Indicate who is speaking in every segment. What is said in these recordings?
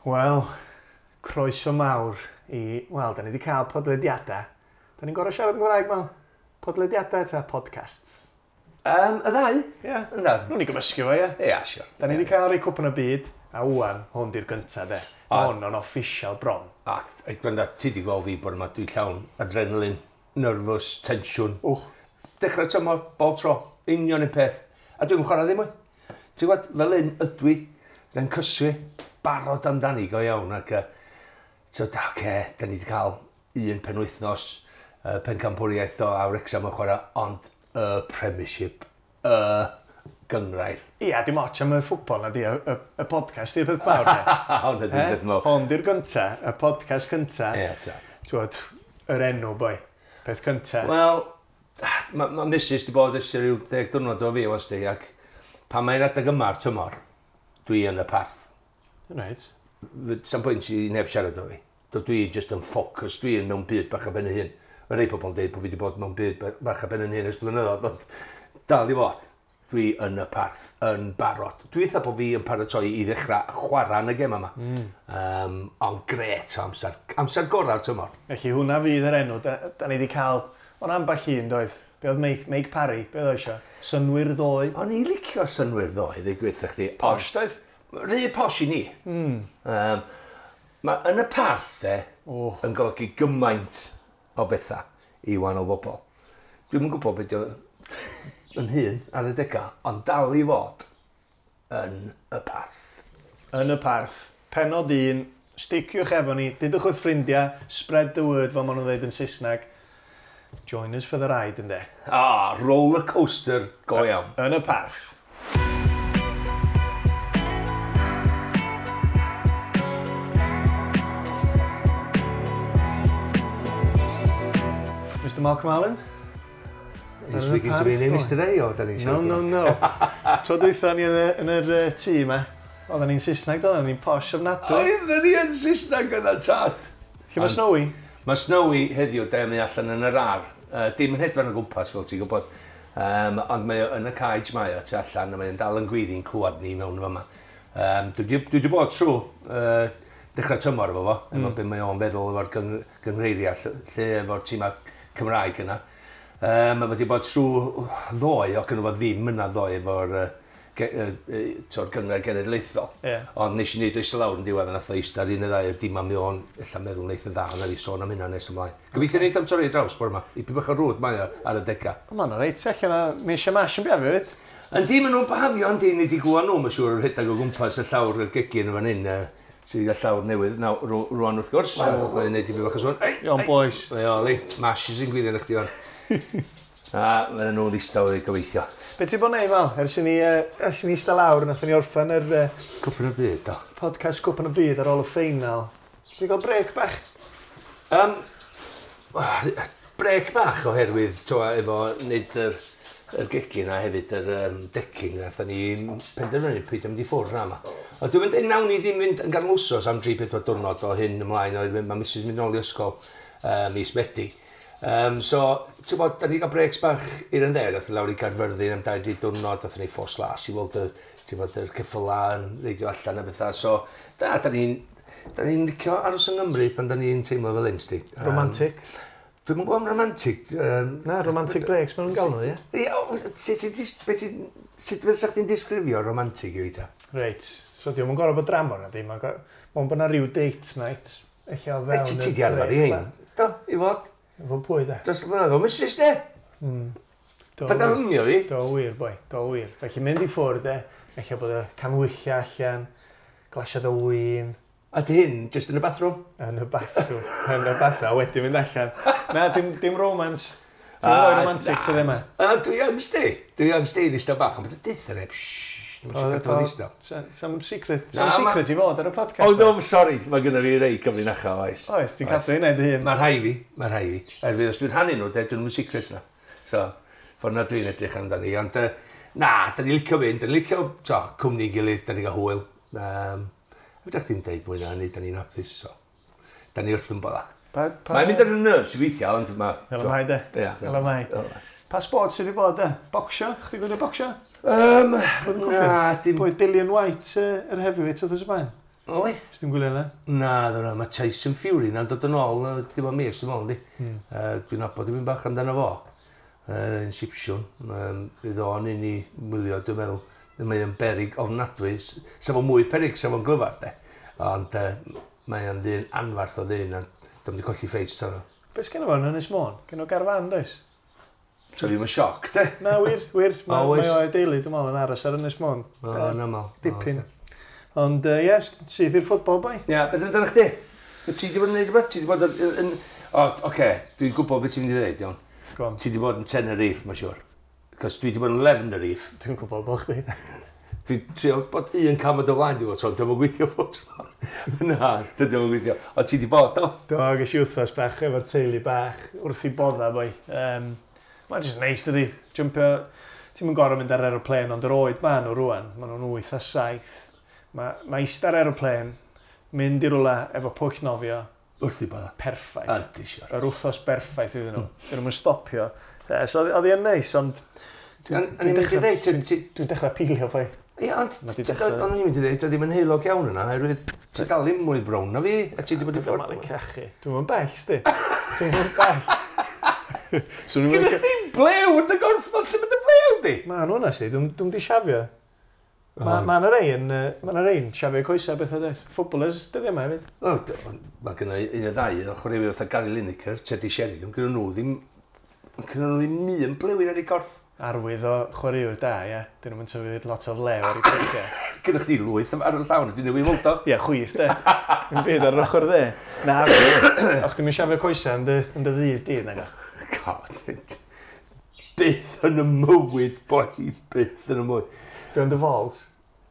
Speaker 1: Wel, croeso mawr i... Wel, da ni wedi cael podlediadau. Da ni'n gorau siarad yn Gymraeg, Mal? Podlediadau ta podcasts?
Speaker 2: Y ddau?
Speaker 1: Ie. Yeah.
Speaker 2: Yndan.
Speaker 1: Nw'n ni gymysgu fo, ie?
Speaker 2: Ia, yeah, sure.
Speaker 1: Da ni wedi cael rei Cwpan y Byd, a wan, hwn di'r gynta, de.
Speaker 2: A-
Speaker 1: Hwn o'n official bron.
Speaker 2: A, ei, gwranda, ti di gweld fi bod yma, dwi llawn adrenalin, nervous, tensiwn.
Speaker 1: Wch.
Speaker 2: Dechrau tymor, bob tro, union un peth. A dwi'n chwarae ddim mwy. Ti'n gwybod, fel un ydw i, rha'n cysgu, barod amdani go iawn. Ac, so, da, oce, da ni wedi cael un penwythnos, pencampwriaeth o a Wrexham yn chwarae, ond y Premiership, y gyngrair.
Speaker 1: Ia, dim ots am y ffwbol na di, y podcast di'r peth mawr, de.
Speaker 2: Hwn ydy'r peth mawr.
Speaker 1: Hwn di'r gynta, y podcast cynta.
Speaker 2: Ie, ta.
Speaker 1: Ti'n yr enw, boi. Peth cynta.
Speaker 2: Wel, mae ma Mrs di bod ers rhyw 10 diwrnod o fi, was di, ac pan mae'n adeg yma'r tymor, dwi yn y parth.
Speaker 1: Reit.
Speaker 2: Sam pwynt i neb siarad o fi. Dwi just yn ffocus, dwi yn mewn byd bach ar ben y hun. Mae rhai pobl yn dweud bod fi wedi bod mewn byd bach ar ben yn hun ers blynyddoedd, ond dal i fod. Dwi yn y parth, yn barod. Dwi eitha bod fi yn paratoi i ddechrau chwarae yn y gem yma. Ond gret o amser. Amser gorau'r tymor.
Speaker 1: Felly hwnna fydd yr enw. Da ni wedi cael... O'n ambell un, doedd? Be oedd Mike Parry? Be oedd o eisiau? Synwyr ddoe.
Speaker 2: O'n i licio synwyr ddoe, ddeu gwir wrtha chdi.
Speaker 1: Posh, doedd?
Speaker 2: Rhy posh i ni. Mae yn y parth, de,
Speaker 1: Oh.
Speaker 2: yn golygu gymaint o bethau i wahanol bobl. Dwi'm yn gwybod beth yn hun ar y dega, ond dal i fod yn y parth.
Speaker 1: Yn y parth. Penod 1. Sticiwch efo ni. Dudwch wrth ffrindiau. Spread the word, fel maen nhw'n dweud yn Saesneg. Join us for the ride, ynde.
Speaker 2: Ah, roller coaster go iawn.
Speaker 1: Yn y parth. Mr Malcolm Allen?
Speaker 2: Are you speaking to me in English today, or da ni'n
Speaker 1: No,
Speaker 2: siarad?
Speaker 1: no, no. Tro dwytha ni yn yr tŷ yma, oedden ni'n Saesneg, doedden ni'n posh ofnadwy.
Speaker 2: Oedden ni yn Saesneg yna, tad.
Speaker 1: Lle mae Snowy?
Speaker 2: Mae Snowy heddiw, de, mae allan yn yr ar. Dim yn hedfan o gwmpas, fel ti'n gwybod. Ond mae o yn y cage mae o tu allan, a mae'n dal yn gweiddi'n clywed ni mewn fama. Dwi wedi bod trwy dechrau tymor efo fo, efo be mae o'n feddwl efo'r gynghreiriau, lle efo'r tîmau Cymraeg yna. Mae wedi bod trwy ddoe, o gynno fo ddim yna ddoe efo'r gynghrair genedlaethol.
Speaker 1: Ie.
Speaker 2: Ond nes i wneud oes lawr yn diwedd a nath o eistedd ar un y ddau o dim am mi o'n ella meddwl neith yn dda, na fi sôn am hynna nes ymlaen. Gobeithio neith am torri draws bore yma. Ipyn bach o rwd mae o ar y dega.
Speaker 1: O, Ma'n reit, allan o Misha Mash yn biafio fyd.
Speaker 2: Yndi, maen nhw'n bahafio, yndi, ni wedi glywed nhw, mae'n siŵr, yn rhedeg o gwmpas y llawr y gegin yn fan hyn, sydd y llawr newydd naw, rwan wrth gwrs. Mae'n neud i fi bach o sôn. Ei,
Speaker 1: Iawn, boys.
Speaker 2: Mae o, li, Mash sy'n gwyddio yn chdi fan. A fydden nhw'n ddistaw i gobeithio.
Speaker 1: Be ti bod neud, Mal? Ers i ni, ers i ni eistedd lawr, nathon ni orffen yr
Speaker 2: Cwpan y byd, do.
Speaker 1: podcast Cwpan y Byd ar ôl y ffeinal. Ti'n gael brec bach?
Speaker 2: Brec bach oherwydd, twa, efo wneud yr gegin a hefyd yr decking, nathon ni penderfynu peidio mynd i ffwrdd na yma. Ond dwi'n mynd, nawn ni ddim mynd yn ganol wsos am 3-4 diwrnod o hyn ymlaen, oherwydd mae Mrs mynd nôl i ysgol mis Medi. So, ti'n bod, da ni gael breaks bach i'r yn there, nath ni lawr i Gaerfyrddin am 2-3 diwrnod, nathon ni Ffos Las i weld y, ti'n bod, yr ceffyla yn reidio allan a bethau. So, da ni'n da ni'n licio aros yng Nghymru pan da ni'n teimlo fel hyn, sti.
Speaker 1: Romantic.
Speaker 2: Dwi'm yn gwybod am romantic.
Speaker 1: Na, romantic breaks, maen nhw'n gael nhw, ie?
Speaker 2: Ie, o, sut fysa chdi'n disgrifio romantic i fi ta?
Speaker 1: Reit, so diolch yn gorfod bod dramor na di, mae'n bod na rhyw date night, eich o fewn
Speaker 2: Ti di arfer i hein? Do, i fod.
Speaker 1: Efo pwy de?
Speaker 2: Dros y blynyddoedd, Mrs de.
Speaker 1: Do
Speaker 2: Fydda
Speaker 1: wir.
Speaker 2: hymio fi.
Speaker 1: Do wir, boi, do wir. Felly mynd i ffwrdd de, eich bod y canwyllau allan, glasiad o win,
Speaker 2: A di hyn, just yn y bathroom?
Speaker 1: yn y bathroom, yn y bathroom, a wedyn mynd allan. Na, dim romance. Ti'n mynd romantic
Speaker 2: na.
Speaker 1: dyddi yma.
Speaker 2: A dwi yn sti. Dwi yn sti ddistaw bach, ond bydd y deutha neb, shh, dwi'n siarad efo ddistaw.
Speaker 1: Some secret,
Speaker 2: Na,
Speaker 1: some secret i fod ar y podcast.
Speaker 2: Oh no, sorry, mae gynna fi rei cyfrinachau, oes.
Speaker 1: Oes, ti'n cadw hynna i dy hun.
Speaker 2: Mae rhai fi, mae rhai fi. Erfydd, os dwi'n rhannu nhw, de, dwi'n mynd secrets na. So, ffordd na dwi'n edrych amdani. Ond, na, da ni licio fynd, da ni licio, to, cwmni gilydd, da ni gael hwyl. Fedra chdi'n deud mwy na hynny, da ni'n hapus, so. Da ni wrth yn bodda. Mae'n mynd ar y nerves i weithio, ond ma...
Speaker 1: Fel y mae de.
Speaker 2: Ie.
Speaker 1: Fel y mae.
Speaker 2: Fel y mae.
Speaker 1: Pa sport sydd wedi bod de? Bocsio? Chdi gwylio bocsio?
Speaker 2: Na, dim...
Speaker 1: Pwy Dillian White, yr heavyweight oedd y blaen?
Speaker 2: Oedd?
Speaker 1: Os ti'n gwylio yna?
Speaker 2: Na, dyna, mae Tyson Fury na'n dod yn ôl, dim ond mis, dwi'n meddwl, di. Dwi'n nabod dim bach amdano fo. Yn Sipsiwn. Bydd o'n un i wylio, dwi'n meddwl. Mae o'n berig ofnadwy. Sa fo mwy perig, sa fo'n glyfar, de. Ond mae o'n ddyn anfarth o ddyn, a dwi'n di colli ffeit tan o.
Speaker 1: Be sgynno fo yn Ynys Môn? Gynno garfan, does?
Speaker 2: So fi'n sioc, de.
Speaker 1: Na, wir, wir. Mae mae o'i deulu, dwi'n meddwl, yn aros ar Ynys Môn.
Speaker 2: O, yn aml.
Speaker 1: Dipyn. Ond, ie, yes, syth i'r ffwtbol, boi.
Speaker 2: Ie, beth amdano chdi? Ti wedi bod yn neud rhywbeth? Ti wedi bod yn... O, oce, dwi'n gwybod beth ti'n mynd i ddweud, iawn.
Speaker 1: Go on.
Speaker 2: Ti wedi bod yn Tenerife, mae'n siŵr. Cos dwi wedi bod yn Lefnerife.
Speaker 1: Dwi'n gwybod bod chdi.
Speaker 2: Dwi'n trio bod un cam o dy flaen, dwi'n bod, dwi'n gweithio bod tro. Na, dydy o'n gweithio. Ond ti wedi bod, do?
Speaker 1: Do, ges i wythnos bach efo'r teulu bach wrth i bodda, boi. Mae'n just neis, dydi. Jumpio... Ti'n mynd gorau mynd ar aeroplane, ond yr oed ma nhw rwan. Maen nhw'n 8 a 7. Mae eistedd ar aeroplane, mynd i rwla efo pwll nofio.
Speaker 2: Wrth i bodda.
Speaker 1: Perffaith.
Speaker 2: Ydy, siwr.
Speaker 1: Yr wythnos berffaith iddyn nhw. Dyn nhw'n stopio. So oedd hi'n neis, ond...
Speaker 2: Dwi'n
Speaker 1: dechrau pilio, boi.
Speaker 2: Ie, ond o'n i'n mynd i ddeud, oedd ddim yn heulog iawn yna, oherwydd ti dal ddim mwy brown na fi, a ti wedi bod i ffwrdd.
Speaker 1: Dwi'n cachu. Dwi'n mynd bell, sti. Dwi'n mynd bell.
Speaker 2: Gyda chdi blew yn dy gorffod, lle mae dy blew di?
Speaker 1: Ma nhw yna, sti. Dwi'n di siafio. Mae yna rei yn siafio coesau beth o dweud. Footballers, dyddi yma hefyd.
Speaker 2: Mae gen i un o ddau, o chwaraewyr fatha Gary Lineker, Teddy Sheringham, gyda nhw ddim un blewyn ar eu corff.
Speaker 1: Arwydd o chwaraewr da, ie. Dyn nhw'n tyfu lot o flew ar eu coesau.
Speaker 2: Gyda chdi lwyth ar y llawn, dwi'n newid weld o.
Speaker 1: Ie, chwith, de. Yn byd ar yr ochr dde. Na, o'ch ti'n mynd siafio coesau yn dy ddydd di, nag o'ch?
Speaker 2: God, byth yn y mywyd, boi, byth yn y mywyd.
Speaker 1: Dwi'n dy falls?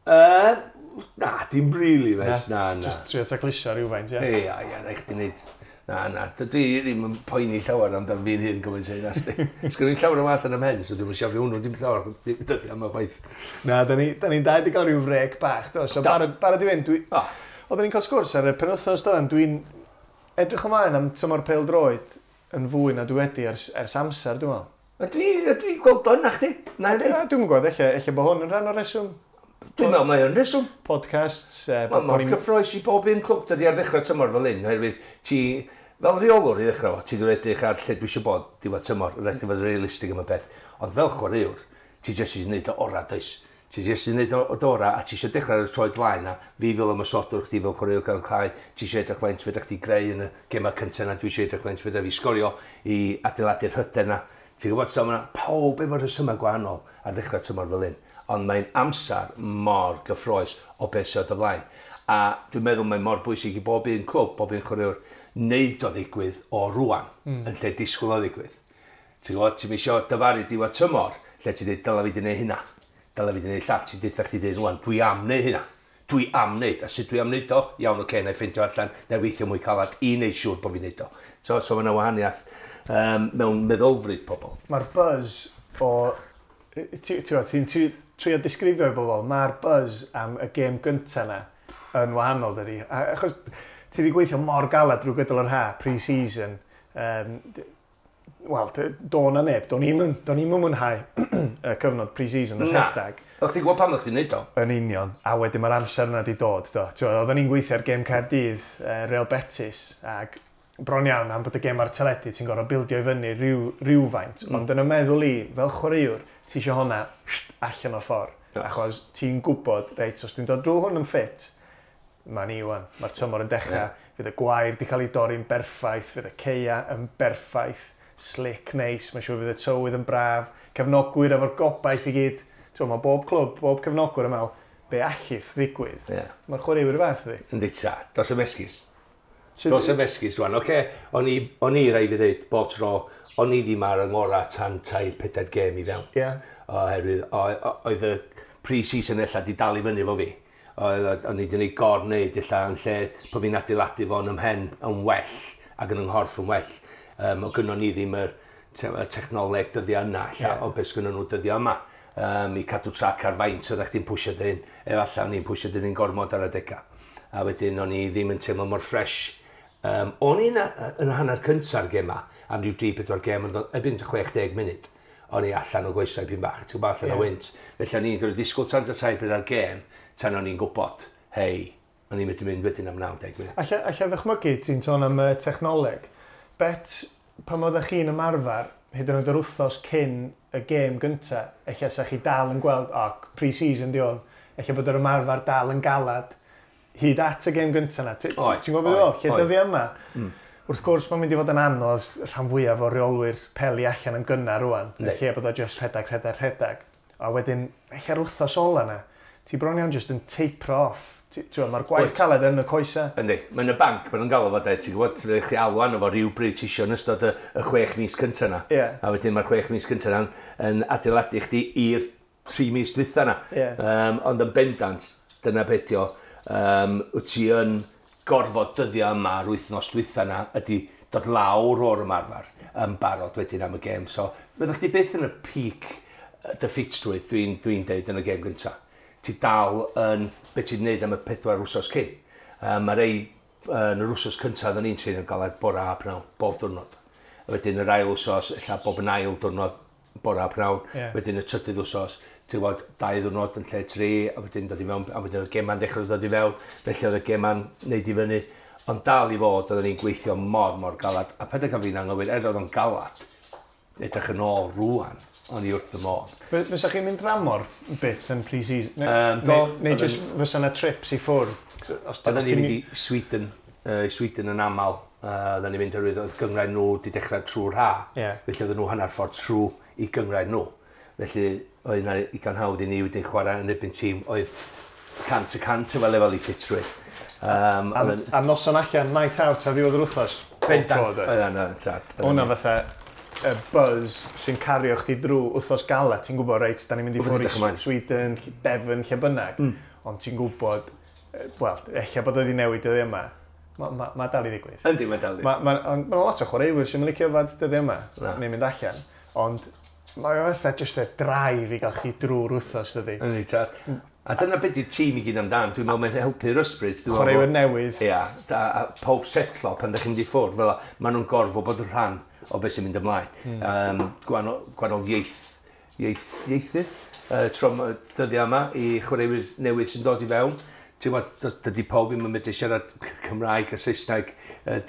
Speaker 2: Na, dim really, mes, na.
Speaker 1: Just trio tacluso rhywfaint, ie?
Speaker 2: Ie, ie, rhaid chdi wneud. Na, dwi ddim yn poeni llawer amdan fi'n hyn gymaint o hynna, sti. Sgwn i'n llawer o wath yn ymhen, so dwi'n siafio hwnnw dim llawer, dyddi am y chwaith.
Speaker 1: Na, da ni'n dau wedi cael rhyw frec bach, do. So barod i fynd, oedden ni'n cael sgwrs ar y penwythnos doedden, dwi'n edrych ymlaen am tymor pêl-droed yn fwy na dwi wedi ers amser, dwi'n meddwl.
Speaker 2: Dwi'n gweld o yna chdi, na i ddweud.
Speaker 1: Dwi'n gwybod, ella bod hwn yn rhan o'r reswm.
Speaker 2: Dwi'n meddwl mae o'n reswm.
Speaker 1: Podcasts.
Speaker 2: Mae mor cyffroes i bob un clwb dydi ar ddechrau tymor fel hyn, oherwydd ti, fel rheolwr i ddechrau fo, ti'n dod edrych ar lle dwi eisiau bod diwedd tymor, rhaid i fod yn realistig am y peth. Ond fel chwaraewr, ti jyst eisiau gwneud o orau, does? Ti jyst eisiau gwneud o orau, a ti eisiau dechrau ar y troed flaen na, fi fel ymosodwr, chdi fel chwaraewr gan clai, ti eisiau edrych faint fedra chdi greu yn y gemau cyntaf na, dwi eisiau edrych faint fedra fi sgorio i adeiladu'r hyder na. Ti'n gwybod, so mae pawb efo rhesymau gwahanol ar ddechrau tymor fel hyn. Ond mae'n amser mor gyffroes o beth sydd o dy flaen. A dwi'n meddwl mae'n mor bwysig i bob un clwb, bob un chwaraewr, wneud o ddigwydd o rwan, yn lle disgwyl o ddigwydd. Ti'n gwybod, ti'n isio dyfaru diwedd tymor, lle ti'n dweud, dylai fi di wneud hynna, dylai fi di wneud llall, ti'n deutha chdi dweud rwan, dwi am wneud hynna, dwi am wneud, a sut dwi am wneud o? Iawn, oce, na i ffeindio allan, na i weithio mwy calad i wneud siŵr bod fi'n wneud o. So mae yna wahaniaeth mewn meddylfryd pobl.
Speaker 1: Mae'r buzz o... Ti'n trio disgrifio i bobl, mae'r buzz am y gêm gyntaf na yn wahanol, dydi. Achos ti wedi gweithio mor galad drwy gydol yr ha, pre-season. Wel, do na neb, do'n i'm yn mwynhau y cyfnod pre-season, y rhedeg.
Speaker 2: O'ch ti'n gwybod pam o'ch ti'n neud o?
Speaker 1: Yn union, a wedyn mae'r amser yna wedi dod. Do. Oedden ni'n gweithio ar gêm Caerdydd, Real Betis, ac bron iawn am bod y gêm ar teledu, ti'n gorfod bildio i fyny rhywfaint. Ond yn y meddwl i, fel chwaraewr, ti eisiau hwnna allan o'r ffordd. Achos ti'n gwybod, reit, os dwi'n dod drwy hwn yn ffit, mae'n i wan, mae'r tymor yn dechrau, fydd y gwair di cael ei dorri'n berffaith, fydd y ceia yn berffaith, slick, neis, mae'n siŵr fydd y tywydd yn braf, cefnogwyr efo'r gobaith i gyd. Ti'n, mae bob clwb, bob cefnogwyr yn meddwl, be allith ddigwydd. Yeah. Mae'r chwaraewyr y fath ydi.
Speaker 2: Yndi ta, dos am esgus. Dos am esgus rwan, oce, o'n i rai fi ddeud, bob tro, o'n i ddim ar yng ngorau tan 3-4 gêm i fewn.
Speaker 1: Yeah.
Speaker 2: Oherwydd, oedd y pre-season ella di dal i fyny efo fi. O'n i wedi gwneud gor-wneud ella yn lle bod fi'n adeiladu fo'n ymhen yn well ac yn ynghorff yn well. O gynnon ni ddim y technoleg dyddiau yna ella, o beth sgynnon nhw dyddiau yma. I cadw trac ar faint oeddech chdi'n pwysio dyn, efallai o'n i'n pwysio dyn yn gormod ar adegau. A wedyn o'n i ddim yn teimlo mor ffres. O'n i'n yn hanner cynta'r gema, am ryw 3-4 gem, erbyn 60 munud, o'n i allan o goesau pyn bach, ti'n gwybod, allan o wynt. Felly o'n i'n gorfod disgwyl tan 3 bryd ar gêm, tan o'n i'n gwybod, hei, O'n i'n medru mynd wedyn am 90 munud.
Speaker 1: Alla ddychmygu, ti'n sôn am y technoleg. Bet, pan oeddech chi'n ymarfer, hyd yn oed yr wythnos cyn y gêm gynta, ella sa chi dal yn gweld, o, pre-season di hwn, ella bod yr ymarfer dal yn galad, hyd at y gêm gynta na. Ti'n gwybod beth oedd? Lle dyddiau yma? Wrth gwrs, mae'n mynd i fod yn anodd rhan fwyaf o reolwyr peli allan yn gynnar rwan. Lle bod o just rhedeg, rhedeg, rhedeg. A wedyn, ella'r wythnos ola na, ti bron iawn just yn taper off. Mae'r gwaith caled yn y coesa.
Speaker 2: Yndi, mae'n y banc, maen nhw'n galw fo de, ti'n gwybod, ti'n chi alw arno fo rhyw bryd ti isio yn ystod y 6 mis cyntaf na.
Speaker 1: Yeah.
Speaker 2: A wedyn mae'r 6 mis cyntaf na'n yn adeiladu chdi i'r 3 mis dwytha na.
Speaker 1: Yeah.
Speaker 2: Ond yn bendant, dyna beth o, wyt ti yn gorfod dyddiau yma yr wythnos dwytha na ydy dod lawr o'r ymarfer yn barod wedyn am y gêm. So, fyddwch chdi byth yn y peak dy ffitrwydd, dwi'n deud yn y gêm gyntaf. Ti dal yn beth ti'n neud am y 4 wsos cyn. Mae rei yn yr wsos cyntaf oedden ni'n trin yn galed bora a pnawn, bob diwrnod. A wedyn yr ail wsos, ella bob yn ail diwrnod bora a pnawn.
Speaker 1: Yeah.
Speaker 2: Wedyn y trydydd wsos, ti'n gwybod, 2 ddiwrnod yn lle 3, a wedyn dod i mewn, a wedyn oedd y gema'n dechrau dod i fewn, felly oedd y gema'n neud i fyny. Ond dal i fod, oedden ni'n gweithio mor, mor galad. A peth gael fi'n anghywir, er oedd o'n galad, edrych yn ôl rŵan, o'n i wrth y modd.
Speaker 1: Fysa chi'n mynd dramor byth yn pre-season? Neu just fysa yna trips i ffwrdd?
Speaker 2: Oedden ni'n mynd i Sweden, Sweden yn aml. Oedden ni'n mynd oherwydd oedd gynghrair nhw wedi dechrau trwy'r ha.
Speaker 1: Yeah.
Speaker 2: Felly oedden nhw hanner ffordd trwy i gynghrair nhw. Felly oedd yna igon hawdd i ni wedyn chwarae yn erbyn tîm oedd 100% efo lefel i ffitrwydd.
Speaker 1: A noson allan, night out a ddiwedd yr wythnos?
Speaker 2: Bendant, oedd yna, tad.
Speaker 1: Hwna fatha y buzz sy'n cario chdi drwy wythnos gala, ti'n gwybod, reit, da ni'n mynd i ffwrdd i Sweden, Devon, lle bynnag, ond ti'n gwybod, wel, ella bod wedi newid dyddiau yma, mae dal i ddigwydd.
Speaker 2: Yndi, mae dal i.
Speaker 1: Mae lot o chwaraewyr sy'n licio yfad dyddiau yma, neu mynd allan, ond mae o fatha just y drive i gael chdi drwy'r wythnos, dydi.
Speaker 2: Yndi, tad. A dyna beth yw'r tîm i gyd amdan, dwi'n meddwl mae'n helpu'r ysbryd.
Speaker 1: Chwaraewyr newydd.
Speaker 2: Ia, a pob setlo pan ddech chi'n mynd i ffwrdd, fel maen nhw'n gorfod bod yn rhan o beth sy'n mynd ymlaen. Gwahanol ieithydd, tro dyddiau yma i chwaraewyr newydd sy'n dod i fewn. Ti'n gwybod, dydy pob ddim yn medru siarad Cymraeg a Saesneg,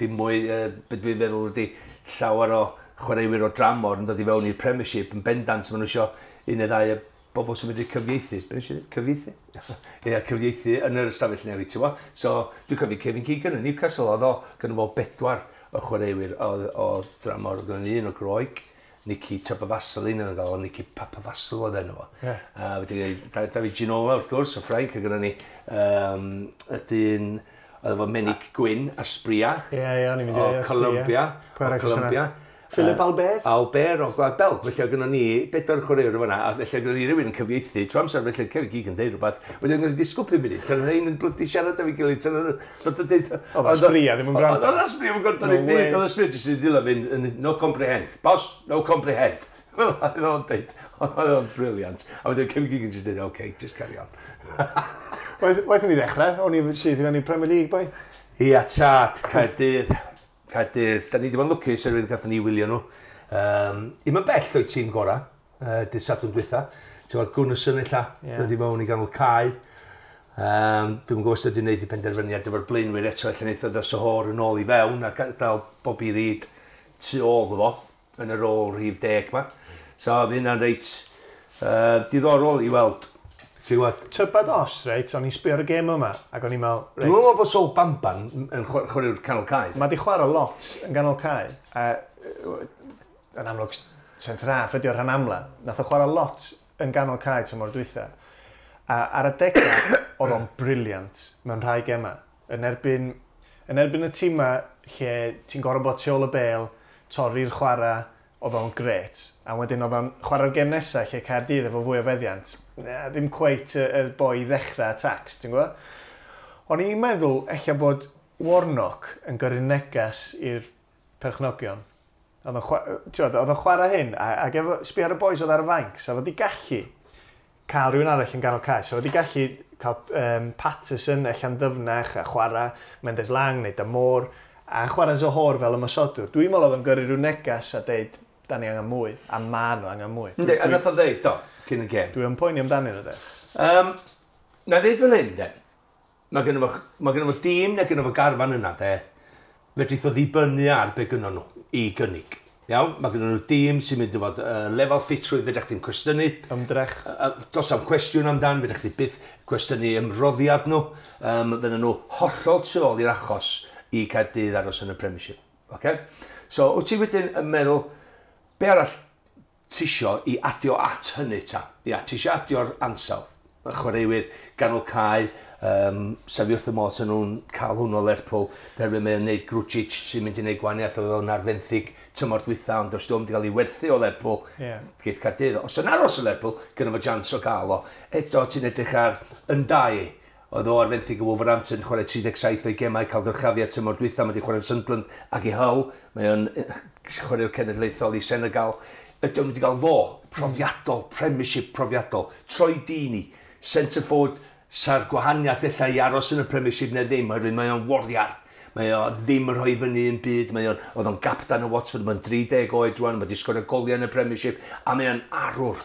Speaker 2: dim mwy, beth dwi'n feddwl ydy llawer o chwaraewyr o dramor yn dod i fewn i'r Premiership yn bendant, maen nhw isio un neu ddau o bobl sy'n medru cyfieithu. Be nes i ddweud? Cyfieithu? Ie, cyfieithu yn yr ystafell newid, ti'n gwybod? So, dwi'n cofio Kevin Keegan yn Newcastle, oedd o, gynno fo 4 o chwaraewyr o dramor, oedd gynno un o Groeg, Nicky Papavasilin yn gael, Nicky Papavasil oedd enw fo.
Speaker 1: Yeah.
Speaker 2: A wedyn David Ginola, wrth gwrs, o Ffrainc, a gynno ni y dyn, oedd efo Menig Gwyn a Sbria.
Speaker 1: Ie, ie, o'n i'n mynd i
Speaker 2: o Colombia.
Speaker 1: Pwy
Speaker 2: O
Speaker 1: arall
Speaker 2: Colombia.
Speaker 1: Philip Albert?
Speaker 2: Albert o Gwlad Belg. Felly oedd gynno ni 4 chwaraewr fan'na, a felly oedd gynno ni rhywun yn cyfieithu. Trwy amser felly Kevin Keegan deud rhywbeth. Wedyn oedd gynno ni disgwyl 5 munud. Tan oedd un yn blydi siarad efo'i gilydd. Tan oedd dod yn deud...
Speaker 1: Oedd Asprilla ddim yn gwrando.
Speaker 2: Oedd Asprilla ddim yn gwrando ddim byd. Oedd Asprilla jyst yn dilyn fynd, no comprehend. Boss, no comprehend. Oedd o'n deud, oedd o'n brilliant. A wedyn Kevin Keegan jyst deud, okay, just carry on.
Speaker 1: Waeth ni ddechrau, o'n i syth i fewn i Premier League, boi.
Speaker 2: Ia, tad, Caerdydd. Caerdydd, da ni wedi bod yn lwcus erwyn gathon ni wylio nhw. Im yn bell o'i tîm gorau, dydd Sadwrn dwytha. Ti'n gwybod, Gunnarsson ella, dod i mewn i ganol cae. Dwi'm yn gwybod os wedi gwneud i penderfyniad efo'r blaenwyr eto, ella wnaeth o ddod Zohore yn ôl i fewn a gadael Bobby Reid tu ôl fo, yn y rôl rhif 10 ma. So, fydd hynna'n reit diddorol i weld. Ti'n gwybod?
Speaker 1: Tybad os, reit, o'n i'n sbio ar y gêm yma, ac o'n i'n meddwl, reit...
Speaker 2: Dwi'n meddwl bod Sol Bamban yn chwaraewr canol cae.
Speaker 1: Mae di chwarae lot yn ganol cae, a yn amlwg centre half ydi o'r rhan amla. Nath o chwarae lot yn ganol cae tymor dwytha. A ar y degau, oedd o'n brilliant mewn rhai gemau. Yn erbyn y tîma lle ti'n gorfod bod tu ôl y bêl, torri'r chwarae, oedd o'n gret. A wedyn oedd o'n chwarae'r gêm nesaf lle Caerdydd efo fwy o feddiant. Na, ddim cweit y boi i ddechrau attacks, ti'n gwybod? O'n i'n meddwl ella bod Warnock yn gyrru neges i'r perchnogion. Oedd o'n chwarae hyn, ac efo sbio ar y boys oedd ar y fainc, so oedd wedi gallu cael rhywun arall yn ganol cae. So oedd wedi gallu cael Patterson ella'n ddyfnach a chwarae Mendes Lang neu Damour, a chwarae Zohore fel ymosodwr. Dwi'n meddwl oedd o'n gyrru rhyw neges a deud, da ni angen mwy, a ma nhw angen mwy.
Speaker 2: Yndi, a nath o ddeud, do, cyn y gêm.
Speaker 1: Dwi'n poeni amdanyn nhw, de.
Speaker 2: Na ddeud fel hyn, de. Mae gynno fo, mae gynno fo dîm neu gynno fo garfan yna, de. Fedrith o ddibynnu ar be gynno nhw i gynnig. Iawn, mae gynno nhw dîm sy'n mynd i fod lefel ffitrwydd fedrwch chdi'n cwestiynu.
Speaker 1: Ymdrech.
Speaker 2: Does am cwestiwn amdan, fedrwch chdi byth cwestiynu ymroddiad nhw. Fydden nhw hollol tu ôl i'r achos i Caerdydd aros yn y Premiership. Okay? So, wyt ti wedyn yn meddwl, be arall ti isio i adio at hynny ta? Ia, ti isio adio'r ansawdd. Y chwaraewyr ganol cae, sef wrth y modd sy'n nhw'n cael hwn o Lerpwl, derfyn mae'n neud Grujic sy'n mynd i wneud gwahaniaeth, oedd o'n ar fenthyg tymor dwytha, ond os di'n wedi cael ei werthu o Lerpwl, geith Caerdydd. Os yn aros o Lerpwl, gynno fo chance o gael o. Eto, ti'n edrych ar Ndiaye, oedd o ar fenthyg o Wolverhampton, chwarae 37 o'i gemau, cael dyrchafiad tymor dwytha, mae wedi chwarae'n Sunderland ac i Hull, mae o'n chwaraewr cenedlaethol i Senegal. Ydy o'n wedi cael fo, profiadol, Premiership profiadol, Troy Deeney, centre forward, sa'r gwahaniaeth ella i aros yn y Premiership neu ddim, oherwydd mae o'n warrior. Mae o ddim yn rhoi fyny yn byd, mae o'n, oedd o'n gaptan o Watford, mae'n 30 oed rwan, mae wedi sgorio goliau yn y Premiership, a mae o'n arwr.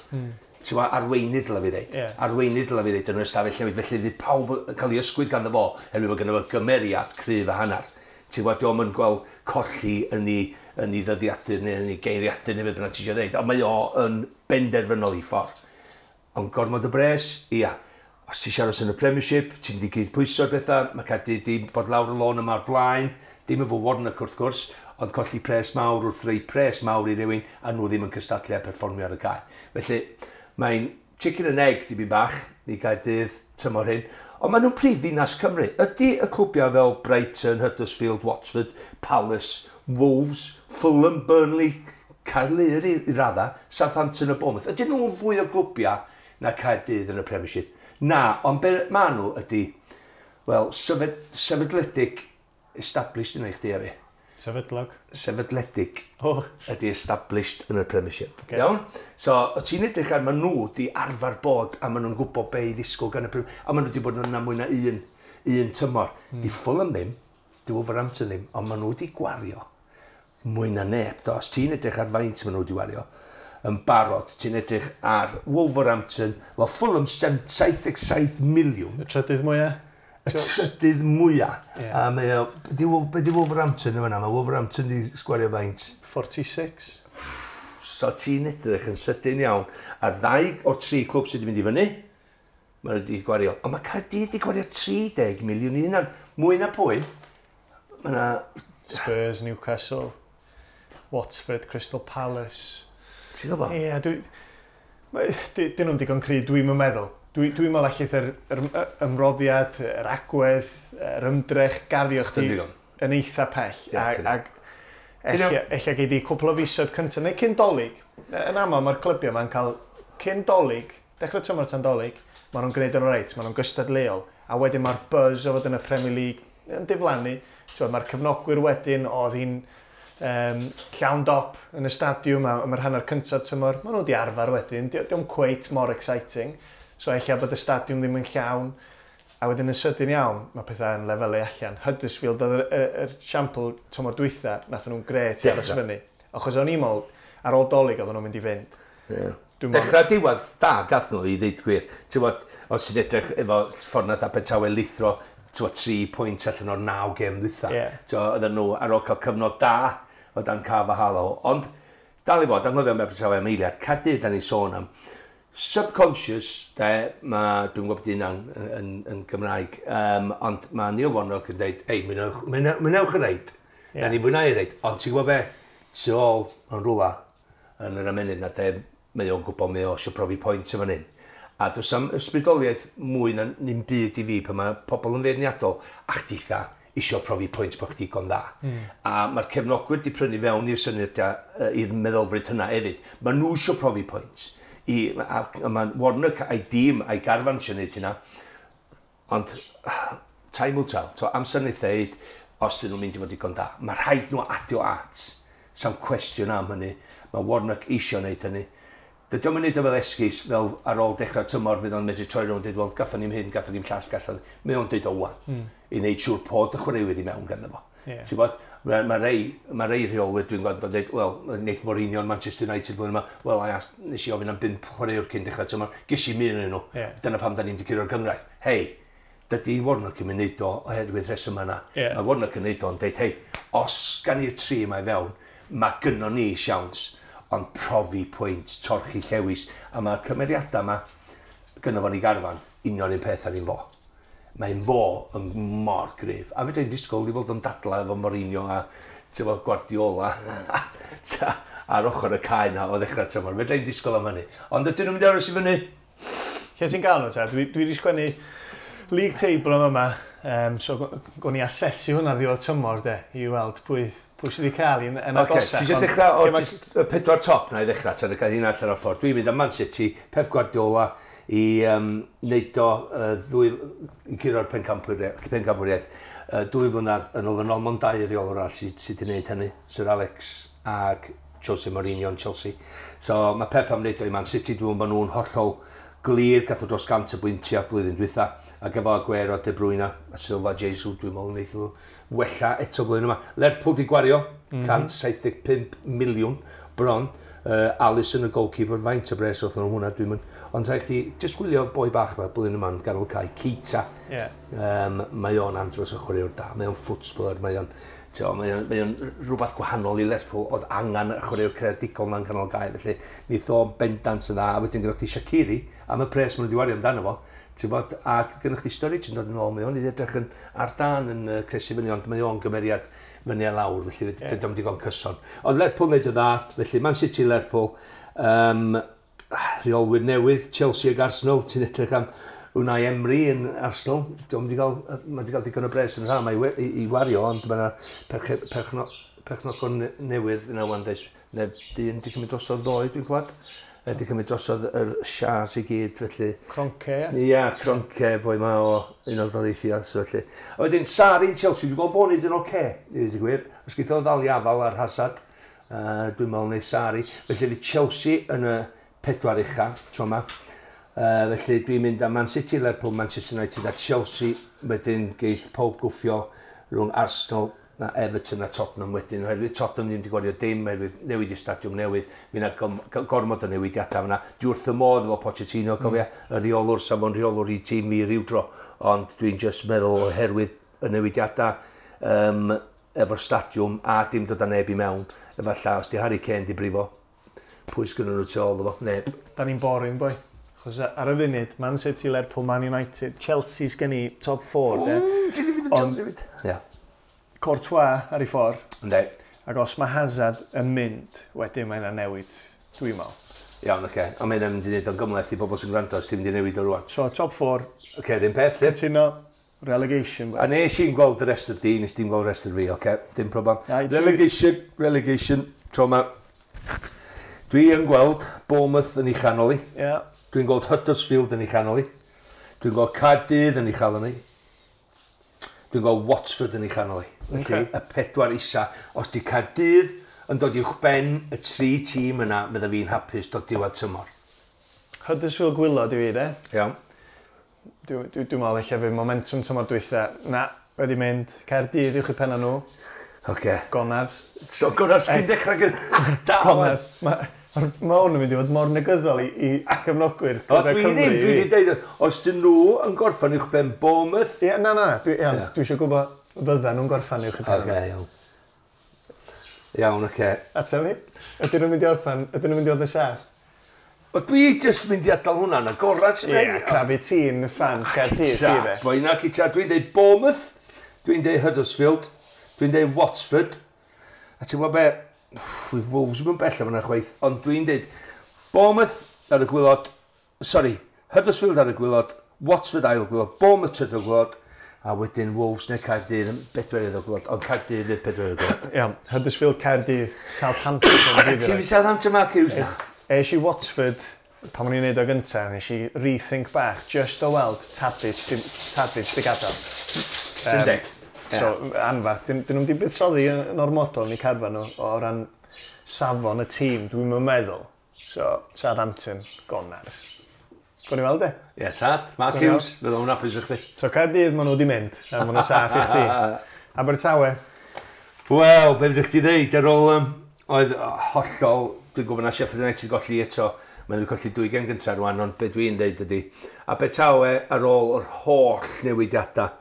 Speaker 2: Ti'n gwbod, arweinydd dylai fi ddeud. Arweinydd dylai fi ddeud yn yr ystafell newid, felly fydd pawb yn cael ei ysgwyd ganddo fo, oherwydd bod gynno fo gymeriad cryf a hanner. Ti'n gwbod, dio'm yn gweld colli yn ei ddyddiadur neu yn ei geiriadur neu beth bynnag ti eisiau ddeud, ond mae o yn benderfynol i ffordd. Ond gormod o bres, ia. Os ti eisiau aros yn y Premiership, ti'n mynd i gyd pwyso'r bethau, mae Caerdydd di bod lawr y lôn yma o'r blaen, dim efo Warnock wrth gwrs, ond colli pres mawr wrth rei pres mawr i rywun, a nhw ddim yn cystadlu a perfformio ar y cae. Felly, mae'n chicken and egg dipyn bach i Gaerdydd tymor hyn, ond maen nhw'n prif ddinas Cymru. Ydy y clwbiau fel Brighton, Huddersfield, Watford, Palace, Wolves, Fulham, Burnley, Caerlŷr i radda, Southampton a Bournemouth, ydyn nhw'n fwy o glwbiau na Caerdydd yn y Premiership? Na, ond be maen nhw ydy, wel, sefydledig, established yna i chdi a fi.
Speaker 1: Sefydlog.
Speaker 2: Sefydledig ydy established yn y Premiership.
Speaker 1: Ocê.
Speaker 2: Iawn? So, o ti'n edrych ar, maen nhw di arfer bod a maen nhw'n gwybod be i ddisgwyl gan y Premiership. A maen nhw di bod yna mwy na un tymor. Di Fulham ddim, di Wolverhampton ddim, ond maen nhw di gwario mwy na neb. Do, os ti'n edrych ar faint maen nhw di wario yn barod, ti'n edrych ar Wolverhampton, wel Fulham 77 miliwn,
Speaker 1: Y trydydd mwyaf?
Speaker 2: Y trydydd mwyaf.
Speaker 1: Ie.
Speaker 2: A mae o, be di Wolverhampton yn fan'na? Mae Wolverhampton di sgwario faint.
Speaker 1: 46.
Speaker 2: So ti'n edrych yn sydyn iawn ar ddau o'r tri clwb sydd wedi mynd i fyny, maen nhw wedi gwario. Ond mae Caerdydd wedi gwario 30 miliwn i hunan. Mwy na pwy? Mae yna
Speaker 1: Spurs, Newcastle, Watford, Crystal Palace.
Speaker 2: Ti'n gwybod?
Speaker 1: Ie, dwi... Dyn nhw'n digon cry, dwi'n meddwl. Dwi'n meddwl allith yr ymroddiad, yr agwedd, yr ymdrech gario chdi
Speaker 2: Dy'n digon.
Speaker 1: yn eitha pell.
Speaker 2: Ie, ti'n-
Speaker 1: Ag
Speaker 2: Ti'n
Speaker 1: ella gei di cwpl o fisoedd cyntaf, neu cyn Dolig. Yn aml mae'r clybiau ma'n cael cyn Dolig, dechrau tymor tan Dolig, maen nhw'n gwneud yn reit, maen nhw'n gystadleuol. A wedyn mae'r buzz o fod yn y Premier League yn diflannu. T'wod, mae'r cefnogwyr wedyn, oedd hi'n llawn dop yn y stadiwm am yr hanner cyntaf tymor. Maen nhw wedi arfer wedyn, dio'm cweit mor exciting. So ella bod y stadiwm ddim yn llawn. A wedyn yn sydyn iawn, mae pethau yn lefelu allan. Huddersfield oedd yr siampl tymor dwytha, nath nhw'n gret i aros
Speaker 2: Dechrau.
Speaker 1: fyny. Achos o'n i'n meddwl, ar ôl Dolig oedden nhw'n mynd i fynd.
Speaker 2: Ie.
Speaker 1: Dwi'n meddwl-
Speaker 2: Dechrau diwedd da gath nhw i ddeud gwir. Ti'n gwbod, os ti'n edrych efo ffordd nath Abertawe lithro, ti'n gwbod, 3 pwynt allan o'r 9 gêm ddwytha. Ti'n gwbod, oedden nhw ar ôl cael cyfnod da o dan Carvalhal. Ond, dal i fod, anghofio am Abertawe am eiliad, Caerdydd da ni'n sôn am. Subconscious, de, ma, dwi'n gwybod bod hynna'n yn Gymraeg, ond mae Neil Warnock yn dweud, ei, mwynewch y reid. Na ni fwynhau y reid, ond ti'n gwybod be, tu ôl yn rwla yn yr ymennydd na de, mae o'n gwybod mae o eisiau profi pwynt efo hyn. A does am ysbrydoliaeth mwy na ddim byd i fi pan mae pobl yn feirniadol a chditha isio profi pwynt bod chdi digon dda. A mae'r cefnogwyr di prynu fewn i'r syniad i'r meddylfryd hynna hefyd. Mae nhw isio profi pwynt. A mae Warnock a'i dîm a'i garfan eisiau gwneud hynna. Ond time will tell. So, amser wneud ddeud os dyn nhw'n mynd i fod digon da. Mae rhaid nhw adio at. Sam cwestiwn am hynny. Mae Warnock eisiau gwneud hynny. Dydy o'm yn neud o fel esgus, fel ar ôl dechrau tymor fydd o'n medru troi rownd dweud, wel, gathon ni'm hyn, gathon ni'm llall, gathon... Mae o'n deud o wan. I wneud siŵr bod y chwaraewyr i mewn ganddo fo. Ti'n bod, mae rei rheolwyr dwi'n gweld yn dweud, wel, wneith Mourinho yn Manchester United blwyddyn yma, wel, I asked, nes i ofyn am 5 chwaraewr cyn dechrau tymor, ges i un yn nhw. Dyna pam da ni'n di curo'r gynghrair. Hei, Dydy Warnock yn mynd neud o oherwydd rheswm yna.
Speaker 1: Yeah.
Speaker 2: Mae Warnock yn neud o'n deud, hei, os gan i'r tri yma i fewn, mae gynnon ni siawns, ond profi pwynt, torchi llewis, a mae'r cymeriadau yma gynno fo'n ei garfan, union un peth ar un fo. Mae'n fo yn mor gryf. A fedra i'n disgwyl i fod yn dadla efo Mourinho a efo Guardiola ar ochr y cae na o ddechrau tymor. Fedra i'n disgwyl am hynny. Ond ydyn nhw'n mynd i aros i fyny?
Speaker 1: Lle ti'n gael nhw ta? Dwi wedi sgwennu league table am yma, so gwn i asesu hwnna ar ddiwedd tymor de, i weld pwy sydd wedi cael yn agosach.
Speaker 2: Ti eisiau dechrau o y pedwar top na i ddechrau, tan y cael hynna allan o'r ffordd. Dwi'n mynd am Man City, Pep Guardiola, i wneud o i guro'r pencampwriaeth. 2 flynedd yn ôl yn ôl, mond 2 reolwr arall sydd wedi gwneud hynny, Sir Alex ac Jose Mourinho yn Chelsea. So mae Pep am wneud o i Man City, dwi'n meddwl bod nhw'n hollol glir, gath o dros 100 o bwyntiau blwyddyn dwytha, ac efo Aguero, De Bruyne a Silva, Jesus, dwi'n meddwl wneith nhw wella eto blwyddyn yma. Lerpwl di gwario, 175 miliwn bron. Alisson y goalkeeper, faint o bres oedd nhw hwnna, dwi'n mynd. Ond rhaid chdi jyst gwylio boi bach yma blwyddyn yma'n ganol cae, Keita.
Speaker 1: Yeah.
Speaker 2: Mae o'n andros o chwaraewr da, mae o'n footballer, mae o'n rhywbeth gwahanol i Lerpwl, oedd angen y chwaraewr creadigol na'n canol gae, felly wnaeth o bendant yn dda, a wedyn gyda chdi Shaqiri, am y pres maen nhw wedi wario amdano fo, ti'n bod, ac gyda chdi Sturridge yn dod yn ôl, mae o'n i edrych yn ar dan yn cresu fyny, ond mae o'n gymeriad fyny a lawr, felly dydy o'm digon cyson. Ond Lerpwl wneud y dda, felly Man City, Lerpwl, rheolwyr newydd, Chelsea ag Arsenal, ti'n edrych am Unai Emery yn Arsenal, mae wedi cael digon o bres yn rhan i wario, ond mae yna perchnogon newydd yna wan, neu dyn wedi cymryd drosodd ddoe, dwi'n clywed. Wedi cymryd drosodd yr shares i gyd, felly...
Speaker 1: Kroenke, ie?
Speaker 2: Ia, Kroenke, boi ma o Unol Daleithiau, so felly. A wedyn, Sarri yn Chelsea, dwi'n gweld fo'n neud yn oce, i ddweud y gwir. Os geith o ddal i afal ar Hazard, dwi'n meddwl neud Sarri. Felly fydd Chelsea yn y 4 ucha, tro yma. Felly dwi'n mynd am Man City, Lerpwl, Manchester United a Chelsea. Wedyn geith pob gwffio rhwng Arsenal na Everton a Tottenham wedyn. Oherwydd Tottenham ddim wedi gwario dim, oherwydd newid i'r stadiwm newydd, mi yna gormod o newidiadau fyna. Dwi wrth y modd efo Pochettino, cofia, y rheolwr, sa fo'n rheolwr i tîm fi ryw dro. Ond dwi'n just meddwl oherwydd y newidiadau efo'r stadiwm a dim dod â neb i mewn. Efallai, os di Harry Kane di brifo, pwy sgynnon nhw tu ôl iddo fo? Neb.
Speaker 1: Da ni'n boring, boi. Chos ar y funud, Man City, Lerpwl, Man United, Chelsea sgen i top 4, de.
Speaker 2: Ti'n mynd am Chelsea hefyd? Ie.
Speaker 1: Courtois ar ei ffordd.
Speaker 2: Yndi.
Speaker 1: Ac os mae Hazard yn mynd, wedyn mae yna newid, dwi'n meddwl.
Speaker 2: Iawn, oce. Ond mae'n mynd i wneud o'n gymhleth i bobl sy'n gwrando os ti'n mynd i newid o rwan.
Speaker 1: So, top 4.
Speaker 2: Oce, yr un peth, lle.
Speaker 1: Cytuno, relegation.
Speaker 2: A nes i'n gweld y rest o'r di, nes ti'n gweld y rest o'r fi, oce, dim problem. Relegation, tro ma. Dwi yn gweld Bournemouth yn ei chanol i.
Speaker 1: Yeah.
Speaker 2: Dwi'n gweld Huddersfield yn ei chanol i. Dwi'n gweld Caerdydd yn ei chanol i. Dwi'n gweld Watford yn ei chanol i. Felly, y 4 isa. Os di Caerdydd yn dod uwch ben y 3 tîm yna, fydda fi'n hapus dod diwedd tymor.
Speaker 1: Huddersfield gwylod i fi, de.
Speaker 2: Iawn.
Speaker 1: Dwi'n meddwl eich fydd momentum tymor dwytha. Na, wedi mynd. Caerdydd uwch i penna nhw.
Speaker 2: Oce.
Speaker 1: Gonars.
Speaker 2: So, Gonars cyn dechrau gyda...
Speaker 1: Gonars. Mae hwn yn mynd i fod mor negyddol i gefnogwyr.
Speaker 2: O, dwi ddim, dwi wedi dweud, os dyn nhw yn gorffan uwch ben Bournemouth...
Speaker 1: Ie, na, dwi eisiau gwybod fydda nhw'n gorffan uwch i ben.
Speaker 2: Oce, iawn. Iawn, oce.
Speaker 1: Ateb fi, ydyn nhw'n mynd i orffan, ydyn nhw'n mynd i fod yn saff?
Speaker 2: O, dwi jyst mynd i adael hwnna'n agorad.
Speaker 1: Ie, crafu tîn fans Caerdydd, ti fe.
Speaker 2: Boi na, cyta, dwi'n dweud Bournemouth, dwi'n dweud Huddersfield, dwi'n dweud Watford, a ti'n gwybod be, Wolves yn bell am yna chwaith, ond dwi'n dweud Bournemouth ar y gwylod, sorry, Huddersfield ar y gwylod, Watford ail gwylod, Bournemouth trydydd gwylod, a wedyn Wolves neu Caerdydd yn bedwerydd o gwylod, ond Caerdydd fydd pedwerydd o gwylod.
Speaker 1: Iawn, Huddersfield, Caerdydd, Southampton.
Speaker 2: Ti'n mynd Southampton, Mark Hughes?
Speaker 1: Es i Watford, pan o'n i'n neud o gyntaf, nes i rethink bach, just o weld Tadic di gadael.
Speaker 2: Yndi.
Speaker 1: So, anfarth, dyn nhw'n di buddsoddi yn ormodol yn eu carfan nhw o ran safon y tîm, dwi'n meddwl. So, Southampton, Gonars. Gwni weld e?
Speaker 2: Ie, tad, Mark Hughes, fydd o'n hapus i chdi.
Speaker 1: So, Caerdydd, maen nhw wedi mynd, a maen nhw'n saff i chdi. Abertawe?
Speaker 2: Wel, be fydych chdi ddeud, ar ôl, oedd hollol, dwi'n gwybod na Sheffield United golli eto Maen nhw colli 2 gêm gyntaf rwan, ond be dwi'n deud ydy, Abertawe ar ôl yr holl newidiadau,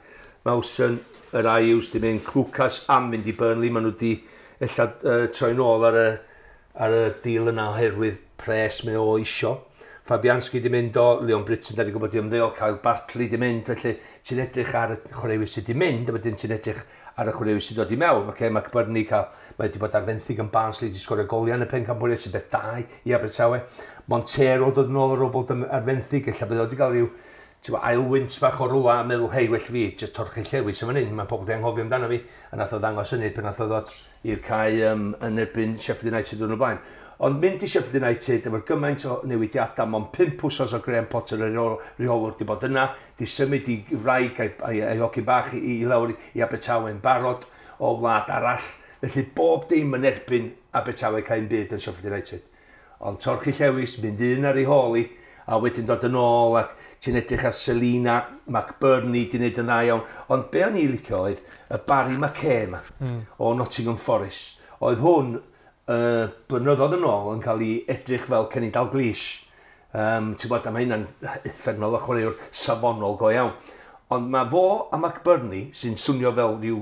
Speaker 2: Mawson, yr Ayews di mynd, Clucas am fynd i Burnley, maen nhw di ella troi nôl ar y deal yna oherwydd pres mae o isio. Fabianski di mynd o, Leon Britton, da ni gwybod di ymddeol, Kyle Bartley di mynd, felly ti'n edrych ar y chwaraewyr sydd di mynd, a wedyn ti'n edrych ar y chwaraewyr sydd dod i mewn. Okay, mae McBurnie cael, mae wedi bod ar fenthyg yn Barnsley, di sgorio goliau yn y pencampwriaeth sy'n beth da i Abertawe. Montero dod yn ôl ar ôl bod ar fenthyg, ella bydd o wedi cael rhyw ail wynt bach o rwla a meddwl, hei, well fi, jyst torchi llewis yn fan hyn, mae pobl di anghofio amdano fi, a nath o ddangos hynny pan nath o ddod i'r cae yn erbyn Sheffield United yn y blaen. Ond mynd i Sheffield United efo'r gymaint o newidiadau, mond 5 wsos o Graham Potter y rheolwr di bod yna, di symud i wraig a'i hogyn bach i lawr i Abertawe yn barod o wlad arall. Felly bob dim yn erbyn Abertawe cael un byd yn Sheffield United. Ond torchi llewis, mynd un ar ei hôl i, a wedyn dod yn ôl ac ti'n edrych ar Selina, McBurnie di wneud yn dda iawn. Ond be o'n i licio oedd y Barry McKay yma o Nottingham Forest. Oedd hwn blynyddoedd yn ôl yn cael ei edrych fel Kenny Dalglish. Ti'n gwybod, a mae hynna'n uffernol o chwaraewr safonol go iawn. Ond mae fo a McBurnie, sy'n swnio fel rhyw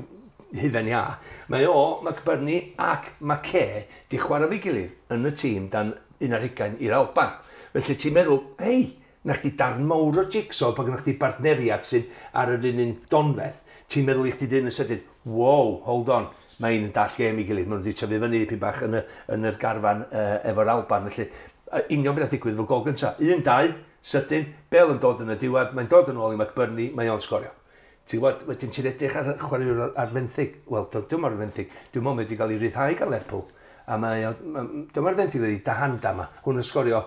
Speaker 2: hufen iâ, mae o, McBurnie ac McKay di chwarae fo'i gilydd yn y tîm dan 21 i'r Alban. Felly ti'n meddwl, hei, na chdi darn mawr o jigsaw pan gynnwch chdi bartneriad sy'n ar yr un donfedd. Ti'n meddwl i chdi dyn yn sydyn, wow, hold on, mae un yn dall gêm i gilydd, maen nhw wedi tyfu fyny dipyn bach yn yr garfan efo'r Alban. Felly, union beth ddigwydd efo gol gyntaf. 1-2, sydyn, Bale yn dod yn y diwedd, mae'n dod yn ôl i McBurnie, mae o'n sgorio. Ti'n gwybod, wedyn ti'n edrych ar chwaraewr ar fenthyg. Wel, dwi'n ar fenthyg, dwi'n meddwl wedi cael ei ryddhau gan Lerpwl. A mae, dyma'r fenthyg wedi Dahanda yma, hwn yn sgorio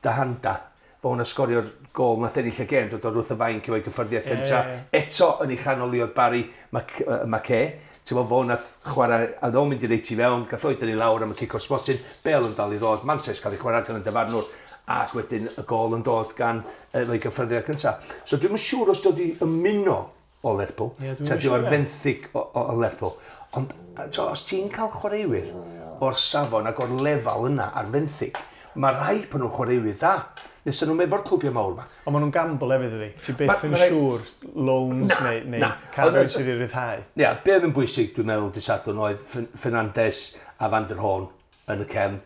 Speaker 2: Dahanda. Fo hwn yn sgorio'r gol nath ennill y gêm, dod o'r wrth y fainc efo'i gyffyrddiad cyntaf. Eto yn ei chanol i oedd Barry McKay. Ti'n gwybod, fo nath chwarae, a ddo'n mynd i reit i fewn, gath o'i dynnu lawr am y cic o'r smotyn, Bale yn dal i ddod, mantais cael ei chwarae gan y dyfarnwr, ac wedyn y gol yn dod gan efo'i gyffyrddiad cyntaf. So dwi'm yn siŵr os dod i ymuno o Lerpwl, ta di o'r fenthyg o Lerpwl. Ond os ti'n cael chwaraewyr o'r safon ac o'r lefel yna ar fenthyg, mae rhaid bod nhw'n chwaraewyr dda. Nes nhw'n efo'r clwbiau mawr yma.
Speaker 1: Ond maen nhw'n gamble hefyd ydy. Ti byth yn siŵr loans neu cael rhywun sydd i ryddhau.
Speaker 2: Ia, be oedd yn bwysig dwi'n meddwl dydd Sadwrn oedd Fernandes a Van der Hoorn yn y cefn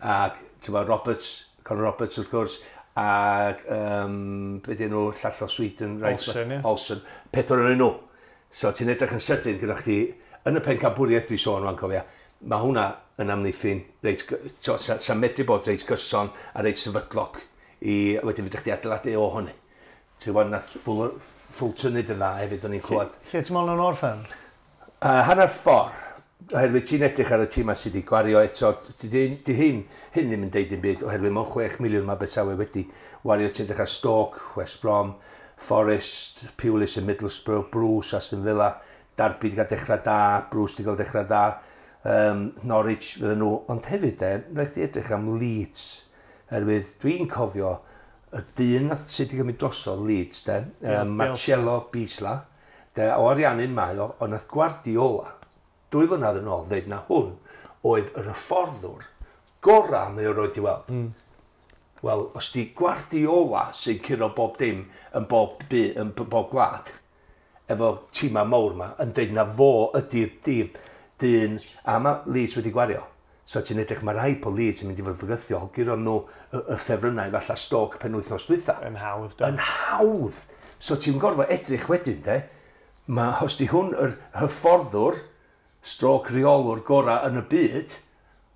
Speaker 2: ac ti'n gwybod, Roberts, Conor Roberts wrth gwrs, ac be dyn nhw, llall o Sweden, right?
Speaker 1: Olsen, ie.
Speaker 2: Olsen, 4 yn nhw. So ti'n edrych yn sydyn gyda chdi, yn y pencampwriaeth dwi sôn rwan cofia, mae hwnna yn amddiffyn, reit, sa'n medru bod reit gyson a reit sefydlog i wedyn fedrwch chdi adeiladu o hynny. Ti'n gwybod, nath Fulton neud yn dda hefyd, o'n i'n clywed.
Speaker 1: Lle ti'n meddwl yn orffen?
Speaker 2: Hanner ffordd, oherwydd ti'n edrych ar y tîm sydd wedi gwario eto, di hyn ddim yn deud dim byd, oherwydd mewn 6 miliwn mae Abertawe wedi wario, ti'n edrych ar Stoke, West Brom, Forest, Pulis yn Middlesbrough, Bruce, Aston Villa, Derby wedi cael dechrau da, Bruce wedi cael dechrau da, Norwich fydden nhw, ond hefyd de, rhaid chdi edrych am Leeds, oherwydd dwi'n cofio y dyn nath sydd wedi gymryd drosodd Leeds de, Marcelo Bielsa, de, o Ariannin mae o, ond nath Guardiola, 2 flynedd yn ôl, ddeud na hwn oedd yr hyfforddwr gorau mae o roed i weld. Wel, os di Guardiola sy'n curo bob dim yn bob, yn bob gwlad, efo tîmau mawr yma, yn deud na fo ydy'r dîm, dyn, a mae Leeds wedi gwario. So ti'n edrych, mae rhai po Leeds yn mynd i fod yn fygythiol, guro nhw y ffefrynnau falle Stoke penwythnos dwytha.
Speaker 1: Yn hawdd, do.
Speaker 2: Yn hawdd. So ti'n gorfod edrych wedyn, de, mae, os di hwn yr hyfforddwr, stroke rheolwr gorau yn y byd,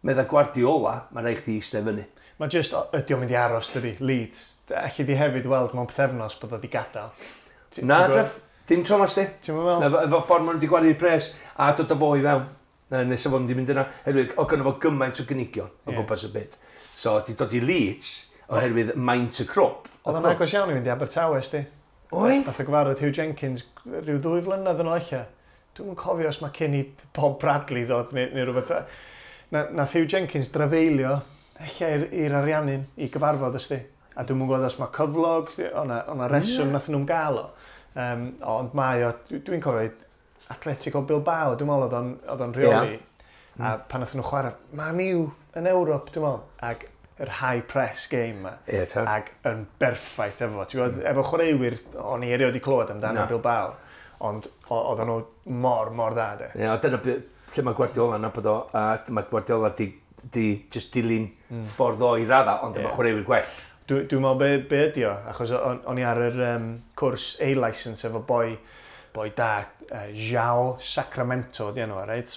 Speaker 2: medda Guardiola, mae rhaid chdi eistedd fyny.
Speaker 1: Mae just, ydy o'n mynd i aros, dydy, Leeds. Alli di hefyd weld mewn pythefnos bod o di gadael.
Speaker 2: Na, Jeff, dim tro mas di.
Speaker 1: Ti'n meddwl?
Speaker 2: Efo ffordd maen nhw wedi gwario pres a dod â fo i fewn. Nes o fod wedi mynd yna, oherwydd o gynno fo gymaint o gynigion o gwmpas y byd. So, di dod i Leeds oherwydd maint y crwb.
Speaker 1: Oedd o'n agos iawn i fynd i Abertawe, sti.
Speaker 2: Oedd?
Speaker 1: Nath o gyfarfod Hugh Jenkins rhyw 2 flynedd yn ôl ella. Dwi'm yn cofio os mae cyn i Bob Bradley ddod neu rhywbeth. Nath Hugh Jenkins drafeilio ella i'r Ariannin i gyfarfod, ysdi. A dwi'm yn gwybod os mae cyflog, o'na reswm nath nhw'n gael o. Ond mae o, dwi'n cofio Atletico Bilbao, dwi'n meddwl oedd o'n rheoli. A pan nath nhw chwarae Man U yn Ewrop, dwi'n meddwl. Ac yr high press game ma.
Speaker 2: Ie, ta.
Speaker 1: Ac yn berffaith efo. Ti'n gwybod, efo chwaraewyr, o'n i erioed 'di clywed amdano Bilbao, ond oedden nhw mor, mor dda, de.
Speaker 2: Ie, yeah, dyna lle mae Guardiola yn nabod o, a mae Guardiola di just dilyn ffordd o i radda, ond efo chwaraewyr gwell.
Speaker 1: Dwi'n meddwl be ydi o, achos o'n i ar yr cwrs A-licence efo boi da, João Sacramento, di enw, reit?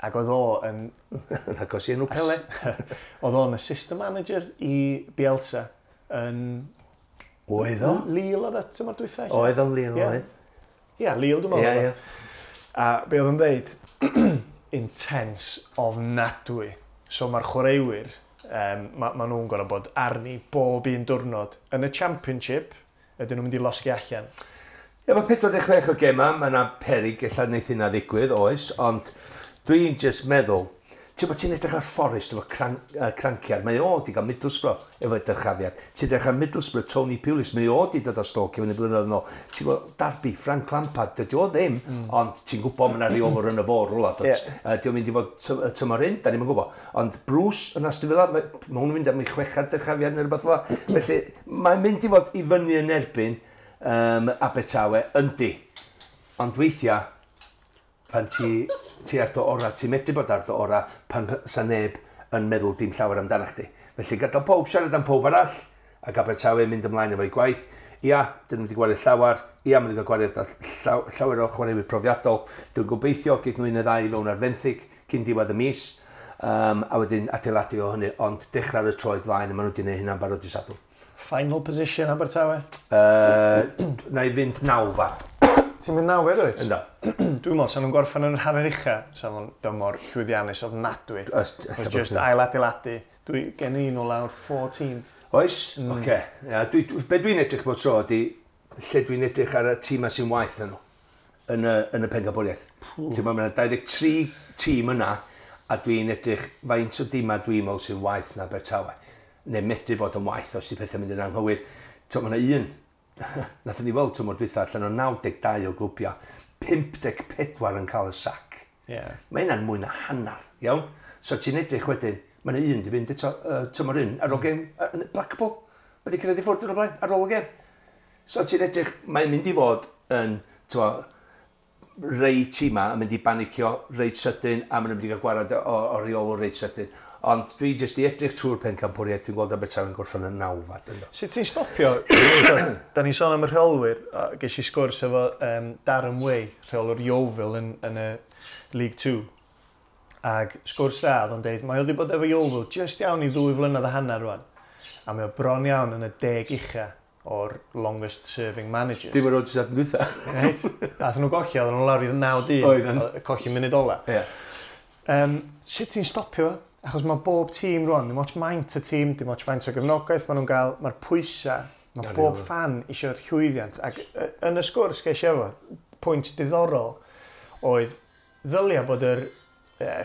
Speaker 1: Ac oedd o yn
Speaker 2: Yn agos i enw Pele.
Speaker 1: Oedd o'n assistant manager i Bielsa yn
Speaker 2: Oedd o?
Speaker 1: Lille oedd o tymor dwytha, ella?
Speaker 2: Oedd o'n Lille, oedd.
Speaker 1: Ie, Lille dwi'n meddwl.
Speaker 2: Ie,
Speaker 1: oedd o. A be oedd o'n dweud, intense ofnadwy. So mae'r chwaraewyr, ma nhw'n gorfod bod arni bob un diwrnod. Yn y Championship, ydyn nhw'n mynd i losgi allan.
Speaker 2: Ie, mae 46 o gema, mae yna perig ella wneith hynna ddigwydd, oes, ond dwi'n just meddwl, ti'n bod ti'n edrych ar Forest efo cranciad, mae o di gael Middlesbrough efo dyrchafiad. Ti'n edrych ar Middlesbrough, Tony Pulis, mae o di dod o Stoke i fyny blynyddoedd yn ôl. Ti'n gwybod, Derby, Frank Lampard, dydy o ddim, ond ti'n gwybod mae yna reolwr yn y fôr rwla.
Speaker 1: Ie.
Speaker 2: Di o'n mynd i fod tymor hyn, da ni'm yn gwybod. Ond Bruce yn Aston Villa, mae hwn yn mynd am ei chwechad dyrchafiad neu rhywbeth fel 'na. Felly, mae'n mynd i fod i fyny yn erbyn Abertawe, yndi. Ond weithiau, pan ti ar dy ora, ti'n medru bod ar dy ora pan sa neb yn meddwl dim llawer amdano chdi. Felly gadael pob siarad am pob arall, ac Abertawe mynd ymlaen efo'i gwaith. Ia, dyn nhw wedi gwario llawer. Ia, maen nhw wedi gwario llawer o chwaraewyr profiadol. Dwi'n gobeithio geith nhw un neu ddau i fewn ar fenthyg cyn diwedd y mis. A wedyn adeiladu o hynny, ond dechrau ar y troed flaen, a maen nhw wedi gwneud hynna'n barod i Sadwrn.
Speaker 1: Final position Abertawe?
Speaker 2: Na i fynd nawfad.
Speaker 1: Ti'n mynd nawfed, wyt?
Speaker 2: Ynddo.
Speaker 1: Dwi'n meddwl, sa'n nhw'n gorffen yn yr hanner ucha, sa'n nhw'n dymor llwyddiannus ofnadwy.
Speaker 2: Ella
Speaker 1: Os just ail adeiladu. Dwi gen i nhw lawr 14th.
Speaker 2: Oes? Oce. Ia, be dwi'n edrych bod tro ydi, lle dwi'n edrych ar y tîmau sy'n waeth na nhw yn y pencampwriaeth. Ti'n meddwl, mae yna 23 tîm yna, a dwi'n edrych faint o dîmau dwi'n meddwl sy'n waeth na Abertawe. Neu medru bod yn waeth os di pethau'n mynd yn anghywir. Ti'n meddwl, mae yna un, nathon ni weld tymor dwytha allan o 92 o glwbiau, 54 yn cael y sac. Mae hynna'n mwy na hanner, iawn? So ti'n edrych wedyn, mae yna un di fynd eto tymor un ar ôl gêm Blackpool. Mae di cyrraedd i ffwrdd yn o blaen, ar ôl y gêm. So ti'n edrych, mae'n mynd i fod yn, t'mo, rei tîma yn mynd i banicio reit sydyn a maen nhw'n mynd i gael gwarad o reolwr reit sydyn. Ond dwi jyst i edrych trwy'r pencampwriaeth, dwi'n gweld Abertawe'n gorffen yn nawfad. Ynddo.
Speaker 1: Sut ti'n stopio? Da ni'n sôn am y rheolwyr, a ges i sgwrs efo Darren Way, rheolwr Yeovil yn y League 2. Ag sgwrs dda, oedd o'n deud, mae o wedi bod efo Yeovil just iawn i 2.5 flynedd rwan. A mae o bron iawn yn y 10 ucha o'r longest serving managers.
Speaker 2: Dim ar ôl jyst dwytha.
Speaker 1: Reit? Athyn nhw golli, oedden nhw lawr i 9 dyn.
Speaker 2: Oedden.
Speaker 1: Colli munud ola. Sut ti'n stopio fo? Achos mae bob tîm rwan, dim ots maint y tîm, dim ots faint o gefnogaeth maen nhw'n gael, mae'r pwysau, mae bob fan eisiau'r llwyddiant. Ac yn y sgwrs ges i efo, pwynt diddorol oedd ddylia bod yr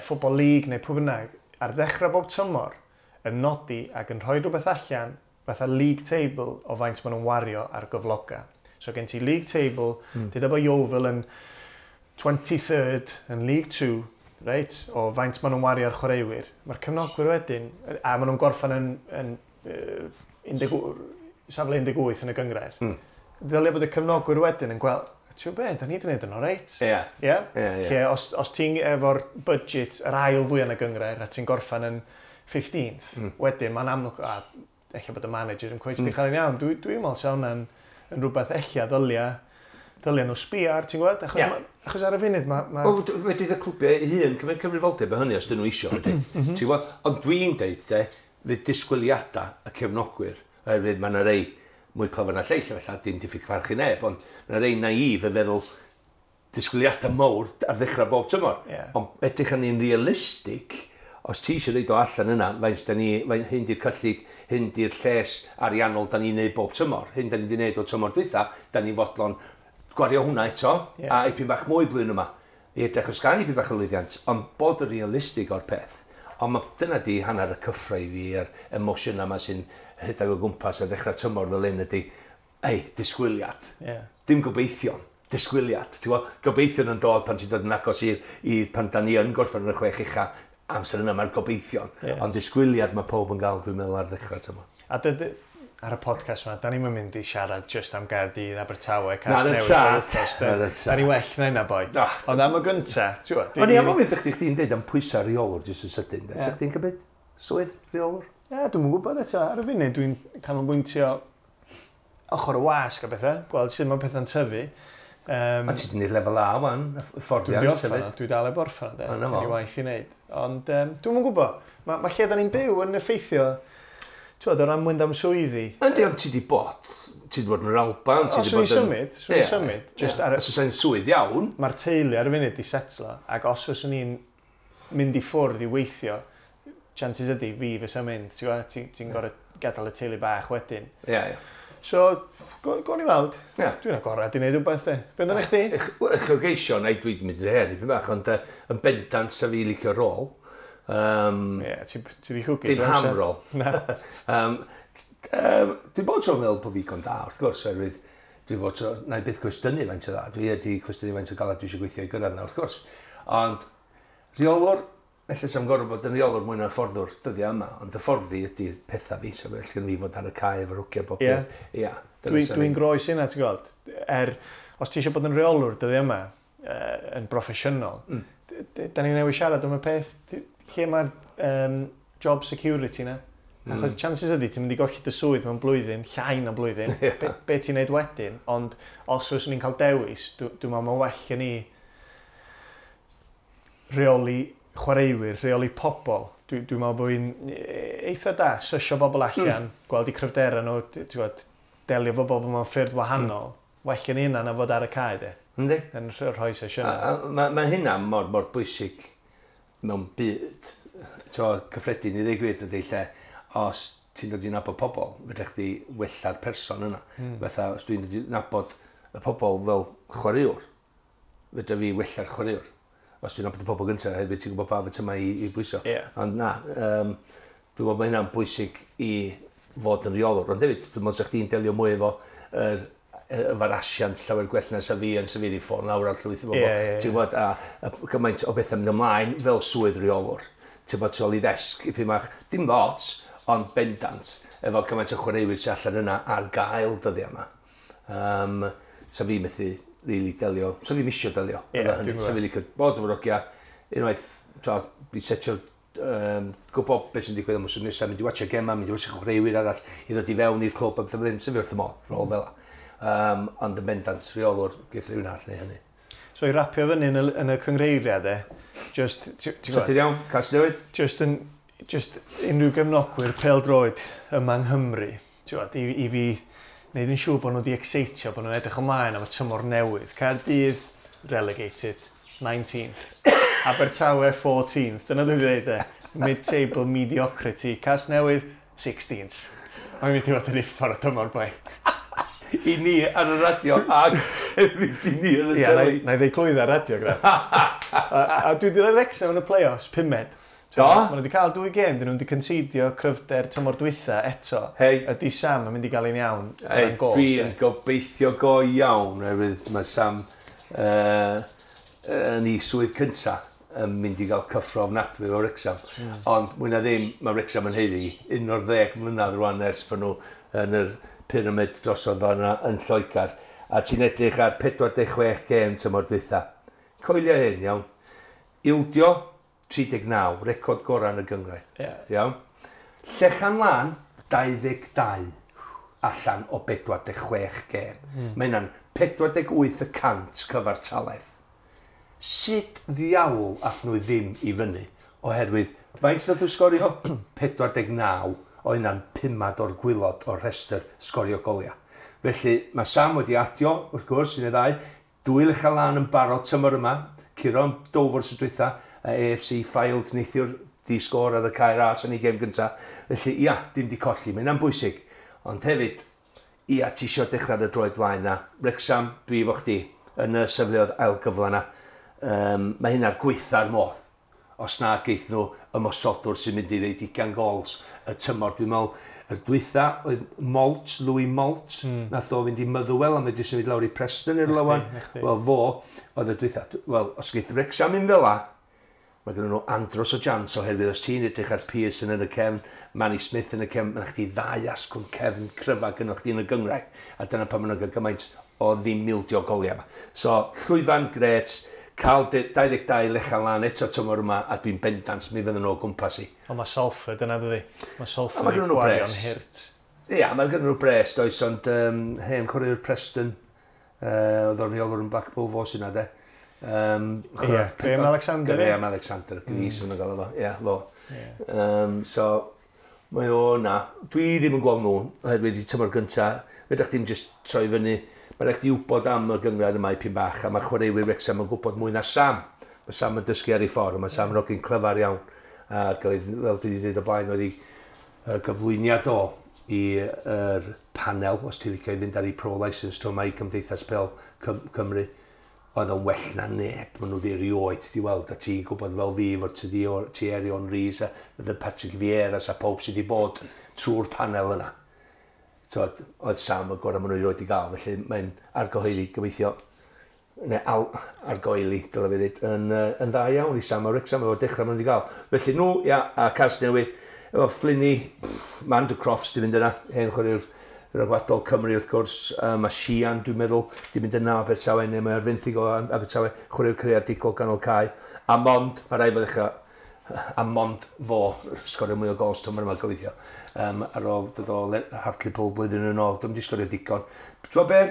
Speaker 1: Football League neu pwy bynnag ar ddechrau bob tymor yn nodi ac yn rhoi rhywbeth allan fatha league table o faint maen nhw'n wario ar gyfloga. So gen ti league table, mm. Deuda bod Yeovil yn 23rd yn League 2, reit, o faint maen nhw'n wario ar chwaraewyr. Mae'r cefnogwyr wedyn, a maen nhw'n gorffen yn 18 safle 18 yn y gynghrair. Ddylia bod y cefnogwyr wedyn yn gweld, ti'n be, da ni wedi gwneud yn oreit. Ie?
Speaker 2: Ie, ie.
Speaker 1: Lle, os ti'n efo'r budget yr ail fwy yn y gynghrair a ti'n gorffen yn 15th, wedyn mae'n amlwg, a ella bod y manager yn cweit mm. cael yn iawn. Dwi'n meddwl sa hwnna'n yn rhywbeth ella ddylia nhw sbio ar, ti'n gwybod? Achos, achos ar y funud ma
Speaker 2: Wel, wedi y clwbiau eu hun cymryd cyfrifoldeb o hynny os dyn nhw isio, ydy. Ti'n gwbod? Ond dwi'n deud, de, fydd disgwyliadau y cefnogwyr, oherwydd mae yna rei mwy clyfar na lleill, felly dim diffyg parch i neb, ond mae yna rei naif yn feddwl disgwyliadau mawr ar ddechrau bob tymor. Ond edrych arni'n realistig, os ti eisiau reid o allan yna, faint da ni, faint hyn di'r cyllid, hyn di'r lles ariannol da ni'n neud bob tymor, hyn da ni wedi neud o tymor dwytha, da ni fodlon gwario hwnna eto, a ipyn bach mwy blwyddyn yma, i edrych os gael ipyn bach o lwyddiant, ond bod yn realistig o'r peth. Ond dyna di hanner y cyffro i fi a'r emosiwn yma sy'n rhedeg o gwmpas a ddechrau tymor fel hyn ydi, ei, disgwyliad. Dim gobeithion, disgwyliad. Ti'n gwbod, gobeithion yn dod pan ti'n dod yn agos i'r pan da ni yn gorffen yn y chwech ucha. Amser yna mae'r gobeithion. Yeah. Ond disgwyliad mae pob yn gael, dwi'n meddwl, ar ddechrau tymor.
Speaker 1: A ar y podcast yma, da ni'n mynd i siarad just am Gaerdydd, Abertawe, Casnewydd, Da ni well na hynna, boi. Oh, Ond am y gynta, ti'n
Speaker 2: gwybod? O'n i am ofyn chdi, chdi'n deud am pwysau rheolwr jyst yn sydyn. Yeah. Sa chdi'n cymryd swydd rheolwr?
Speaker 1: Ie, yeah, dwi'n gwybod eto. Ar y funud, dwi'n canolbwyntio ochr y wasg a bethau, gweld sut mae pethau'n tyfu.
Speaker 2: A ti wedi gwneud lefel A wan, fforddiant
Speaker 1: hefyd. Dwi dal heb orffan, de. Dwi'n i waith i wneud. Ond dwi'n gwybod, mae ma lle da ni'n byw yn effeithio, ti'n o ran mynd am swyddi.
Speaker 2: Yndi, ond ti wedi bod, ti wedi bod yn yr Alban, ti wedi bod
Speaker 1: yn... Symud, swn i'n symud.
Speaker 2: Just ar... Os oes swydd iawn.
Speaker 1: Mae'r teulu ar y funud di setlo, ac os fyswn i'n mynd i ffwrdd i weithio, chances ydy fi fysa mynd, ti'n gwybod, ti'n ti gorfod gadael y teulu bach wedyn.
Speaker 2: Ie, yeah, ie. Yeah.
Speaker 1: So, go ni weld. Yeah. Dwi'n agorad i wneud rhywbeth, de. Be amdano chdi?
Speaker 2: Uchelgeisio, na i dwi'n mynd i'r her, dipyn bach, ond yn bendant sa fi licio rôl.
Speaker 1: Ie, ti di chwgu.
Speaker 2: Dim ham rôl. Na. Dwi'n bod tro'n meddwl bod fi gon da, wrth gwrs, oherwydd dwi'n bod tro, na i byth cwestiynu faint o dda. Dwi wedi cwestiynu faint o galed dwi eisiau gweithio i gyrraedd na, wrth gwrs. Ond rheolwr, felly sa'm gorfod bod yn rheolwr mwy na hyfforddwr dyddiau yma, ond hyfforddi ydy'r pethau fi, so felly gen fi fod ar y cae efo'r hogia bob
Speaker 1: dydd. Ia. Dwi'n groes hynna, ti'n gweld. Os ti eisiau bod yn rheolwr dyddiau yma, yn broffesiynol, da ni'n newid siarad am y peth, lle mae'r job security na? Achos chances ydy, ti'n mynd i golli dy swydd mewn blwyddyn, llai na blwyddyn, yeah. be ti'n neud wedyn, ond os fyswn i'n cael dewis, dwi'n meddwl mae'n well gen i rheoli chwaraewyr, rheoli pobl. Dwi'n meddwl bod fi'n eitha da, sysio bobl allan, gweld eu cryfderau nhw, ti'n gwybod, delio efo bobl mewn ffyrdd wahanol. Well gen i hynna na fod ar y cae, de.
Speaker 2: Yndi.
Speaker 1: Yn rhoi sesiynau.
Speaker 2: Mae ma hynna mor, mor bwysig mewn byd, cyffredin i ddweud gwir ydy lle, os ti'n dod i nabod pobl, fedra chdi wella'r person yna. Fatha, os dwi'n dod i nabod y pobl fel chwaraewr, fedra fi wella'r chwaraewr. Os dwi'n nabod y pobl gyntaf, hefyd ti'n gwybod pa fyt yma i bwyso.
Speaker 1: Yeah.
Speaker 2: Ond na, dwi'n meddwl mae hynna'n bwysig i fod yn rheolwr. Ond hefyd, dwi'n meddwl sa chdi'n delio mwy efo efo'r asiant llawer gwell na sa fi yn sefyll i ffôn lawr ar llwyth o bobl. Yeah. Ti'n gwybod, a gymaint o bethau mynd ymlaen fel swydd rheolwr. Ti'n gwybod, tu ôl i ddesg, i pyn bach, dim lot, ond bendant, efo gymaint o chwaraewyr sy'n allan yna ar gael dyddiau yma. Sa fi methu really delio, sa fi misio delio.
Speaker 1: Yeah,
Speaker 2: sa fi licio bod efo'r hogia, unwaith, fi setio gwybod beth sy'n digwydd am wsos nesaf, mynd i watcha gema, mynd i watcha chwaraewyr arall, i ddod i fewn i'r clwb a beth fel hyn, sa fi wrth y modd, rôl fel la. Ond yn bendant, rheolwr, geith rhywun arall neu hynny.
Speaker 1: So i rapio fyny yn y cyngreiriau de, just...
Speaker 2: Sydyn iawn, Casnewydd?
Speaker 1: Just unrhyw gefnogwyr pêl-droed yma yng Nghymru, ti'n gwybod, i fi wneud yn siŵr bod nhw wedi excitio, bod nhw'n edrych ymlaen am y tymor newydd. Caerdydd, relegated, 19th. Abertawe, 14th. Dyna dwi'n dweud e. Mid-table mediocrity. Casnewydd, 16th. Mae'n mynd i fod yn uffar o tymor, boi.
Speaker 2: I ni ar y radio ac hefyd i ni ar y teli.
Speaker 1: Na i ddeud clwydda ar radio, gra. A dwi wedi rhoi Wrexham yn y play-offs, pumed.
Speaker 2: Do?
Speaker 1: Maen nhw wedi cael dwy gêm, dyn nhw wedi concedio cryfder tymor dwytha eto.
Speaker 2: Hei.
Speaker 1: Ydy Sam yn mynd i gael un iawn.
Speaker 2: Hei, dwi'n gobeithio go iawn, oherwydd mae Sam yn ei swydd cynta yn mynd i gael cyffro ofnadwy o Wrexham. Ond mwy na ddim, mae Wrexham yn haeddu 11 mlynedd rwan ers pan nhw yn yr pyramid drosodd yna yn Lloegr. A ti'n edrych ar 46 gêm tymor dwytha. Coelio hyn, iawn. Ildio 39, record gorau yn y gynghrair.
Speaker 1: Yeah.
Speaker 2: Iawn. Llechan Lân, 22 allan o 46 gêm. Mae hynna'n 48% cyfartaledd. Sut ddiawl ath nhw ddim i fyny? Oherwydd, faint nath nhw sgorio? 49 o hynna'n pumad o'r gwylod o'r rhestr sgorio goliau. Felly, mae Sam wedi adio, wrth gwrs, un neu ddau, dwy Lechan Lân yn barod tymor yma, curo am Dover sy'n dwytha, AFC Fylde neithiwr di sgôr ar y Cae Ras yn ei gêm gynta. Felly, ia, dim di colli, mae hynna'n bwysig. Ond hefyd, ia, ti isio dechrau ar y droed flaen na. Wrexham, dwi efo chdi, yn y sefleoedd ail gyfle na. Mae hynna'r gweitha'r modd. Os na geith nhw ymosodwr sy'n mynd i reid 20 gols y tymor. Dwi'n meddwl, yr dwytha oedd Moult, Louis Moult, nath o fynd i Motherwell a mae symud lawr i Preston i'r lywan. Wel, fo oedd y dwytha. Wel, os geith Wrexham un fel la, Mae gen nhw andros o jans oherwydd os ti'n edrych ar Pearson yn y cefn, Manny Smith yn y cefn, mae chdi ddau asgwrn cefn cryfa gynnwch chdi yn y gynghrair. A dyna pan maen nhw'n cael gymaint o ddim ildio goliau yma. So, llwyfan gret, cael 22 lechal lan eto tymor yma, a dwi'n bendant mi fydden nhw o gwmpas i.
Speaker 1: Ond mae Salford yna, dydi? Mae
Speaker 2: A
Speaker 1: Salford
Speaker 2: ma'
Speaker 1: yn
Speaker 2: gynnon nhw
Speaker 1: gwario'n
Speaker 2: bres.
Speaker 1: hurt.
Speaker 2: Ia, mae gen nhw bres, does, ond hen chwaraewr Preston, oedd o'n rheolwr yn Blackpool fo sy'n de.
Speaker 1: Ie, Graham Alexander, ie?
Speaker 2: Graham Alexander, Gris mm. yn gael efo, ie, fo.
Speaker 1: Ie.
Speaker 2: So, mae o na. Dwi ddim yn gweld nhw, oherwydd i tymor gynta, fedrwch chdi'm jyst troi fyny. Mae rhaid chdi wybod am y gynghrair yma i pyn bach, a mae chwaraewyr Wrexham yn gwybod mwy na Sam. Mae Sam yn dysgu ar ei ffordd, a mae Sam yn hogyn clyfar iawn. Ac oedd, fel dwi wedi dweud o blaen, oedd ei gyflwyniad o i'r panel, os ti'n licio i fynd ar ei pro licence tro mae i Cymdeithas Pêl Cymru, oedd o'n well na neb, maen nhw wedi erioed di weld, a ti'n gwybod fel fi fod ti di Thierry Henry a the Patrick Vieira a pob sydd wedi bod trwy'r panel yna. So, oedd Sam y gorau maen nhw erioed di gael, felly mae'n argyhoeddi, gobeithio, neu argoeli, dylai fi ddweud, yn dda iawn i Sam a Wrexham efo'r dechrau maen nhw wedi gael. Felly nhw, ia, a Casnewydd, efo Flinny, Manda Crofts di fynd yna, hen chwaraewr rhyngwladol Cymru wrth gwrs, mae Sian, dwi'n meddwl, di mynd yna o Abertawe, neu mae ar fenthyg o Abertawe, chwaraewr creadigol ganol cae. A mond, mae rhaid fo ddechrau, a mond fo sgorio mwy o gols tymor yma gobeithio. Ar ôl dod o Hartlepool blwyddyn yn ôl, dwi'n di sgorio digon. Ti'n gwbod be?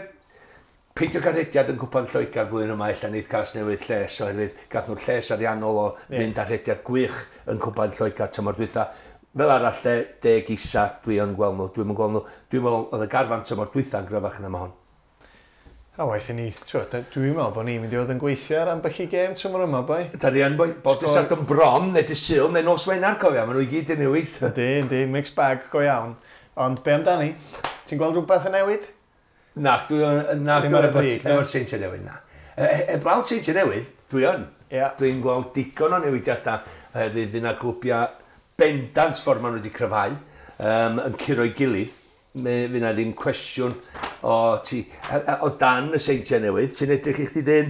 Speaker 2: Peidio cael rhediad yn Cwpan Lloegr flwyddyn yma, ella neith Casnewydd lles, oherwydd gath nhw'r lles ariannol o fynd ar rhediad gwych yn Cwpan Lloegr tymor dwytha. Fel arall, de, deg isa, dwi yn gweld nhw, dwi'n gweld nhw. Dwi'n meddwl oedd y garfan tymor dwytha'n gryfach na ma hon.
Speaker 1: A waeth i ni, t'wod, dwi'n meddwl bod ni'n mynd i fod yn gweithio ar ambell i gêm tymor yma, boi.
Speaker 2: Da ni yn boi, bob dydd Sadwrn bron, neu dydd Sul, neu nos Wener, cofia, maen nhw i gyd yn newid.
Speaker 1: Yndi, yndi, mixed bag go iawn. Ond be amdani? Ti'n gweld rhywbeth yn newid?
Speaker 2: Na, dwi'n... Na,
Speaker 1: Ddim ar y brig, na?
Speaker 2: Efo'r Seintiau Newydd, na. Heblaw Seintiau Newydd, dwi yn.
Speaker 1: Ie.
Speaker 2: Dwi'n gweld digon o newidiadau oherwydd fydd yna glwbiau bendant ffordd maen nhw wedi cryfhau, yn curo'i gilydd. Fydd yna ddim cwestiwn o, ti, o dan y Seintiau Newydd. Ti'n edrych i chdi dyn,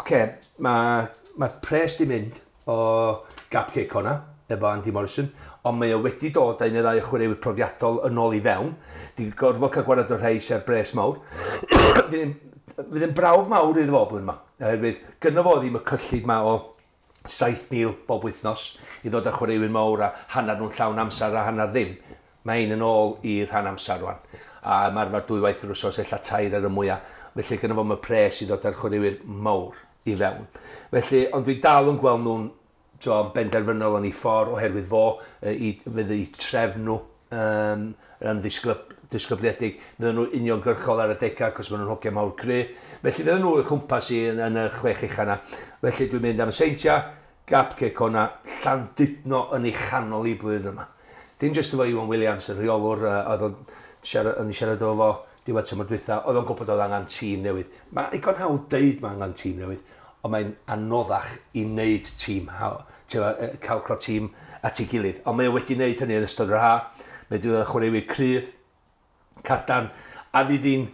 Speaker 2: oce, mae'r pres di mynd o Gap Cei Connah, efo Andy Morrison, ond mae o wedi dod â un neu ddau o chwaraewyr profiadol yn ôl i fewn. Di gorfod cael gwared o'r rhai sy'n bres mawr. Fydd yn brawf mawr iddo fo blwyddyn yma. Oherwydd gynno fo ddim y cyllid ma o 7,000 bob wythnos i ddod â chwaraewyr mawr a hanner nhw'n llawn amser a hanner ddim. Mae un yn ôl i'r rhan amser rwan. A ymarfer dwywaith yr wsos, ella tair ar y mwyaf. Felly gynno fo y pres i ddod â'r chwaraewyr mawr i fewn. Felly, ond dwi dal yn gweld nhw'n benderfynol yn ei ffordd oherwydd fo, fydd eu trefn nhw yn ddisgybliedig. Fydden nhw uniongyrchol ar y degau, cos maen nhw'n hogiau mawr cry. Felly fydden nhw i'w chwmpas i yn y chwech ucha yna. Felly dwi'n mynd am y Seintiau, Gap Cei Connah, Llandudno yn ei chanol i blwyddyn yma. Dim jyst efo Iwan Williams, y rheolwr, oedd o'n siarad efo fo diwedd tymor dwytha, oedd o'n gwybod oedd angen tîm newydd. Mae digon hawdd deud mae angen tîm newydd, ond mae'n anoddach i wneud tîm, cael tîm at ei gilydd. Ond mae o wedi wneud hynny yn ystod yr ha. Mae wedi dod â chwaraewyr cryf, cadarn, a fydd hi'n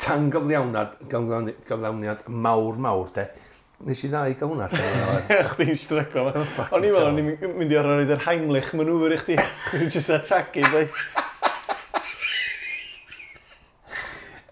Speaker 2: tangyflawniad mawr, mawr, de. Nes i dda i gael hwnna.
Speaker 1: Chdi'n stryglo. O'n i'n meddwl o'n i'n mynd i orfod roid yr Heimlich maneuver i chdi. Chdi'n just atagu, boi.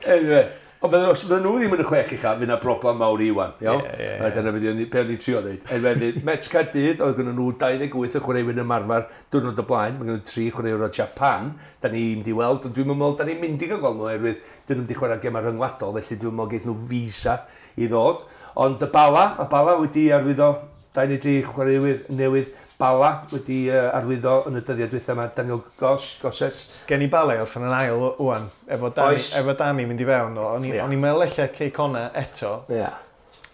Speaker 2: Anyway, ond os fydden nhw ddim yn y chwech ucha, fydd yna broblem mawr i Iwan, iawn?
Speaker 1: Ie, ie,
Speaker 2: A dyna fydd be o'n i'n trio ddeud. Anyway, fydd Met Caerdydd, oedd gynnon nhw 28 o chwaraewyr yn ymarfer diwrnod o blaen, mae gynnon nhw 3 chwaraewyr o Japan, da ni'n mynd i weld, ond dwi'n meddwl, da ni'n mynd i gael gweld nhw, oherwydd dyn nhw'n mynd i chwarae gemau rhyngwladol, felly dwi'n meddwl geith nhw visa i ddod. Ond y Bala, mae Bala wedi arwyddo 2 neu 3 chwaraewyr newydd. Bala wedi arwyddo yn y dyddiau dwytha yma, Daniel Gosset.
Speaker 1: Gen i Bala i orffen yn ail ŵan, efo Danny, efo Danny mynd i fewn. O'n i'n meddwl ella Cei Connah eto.
Speaker 2: Ie.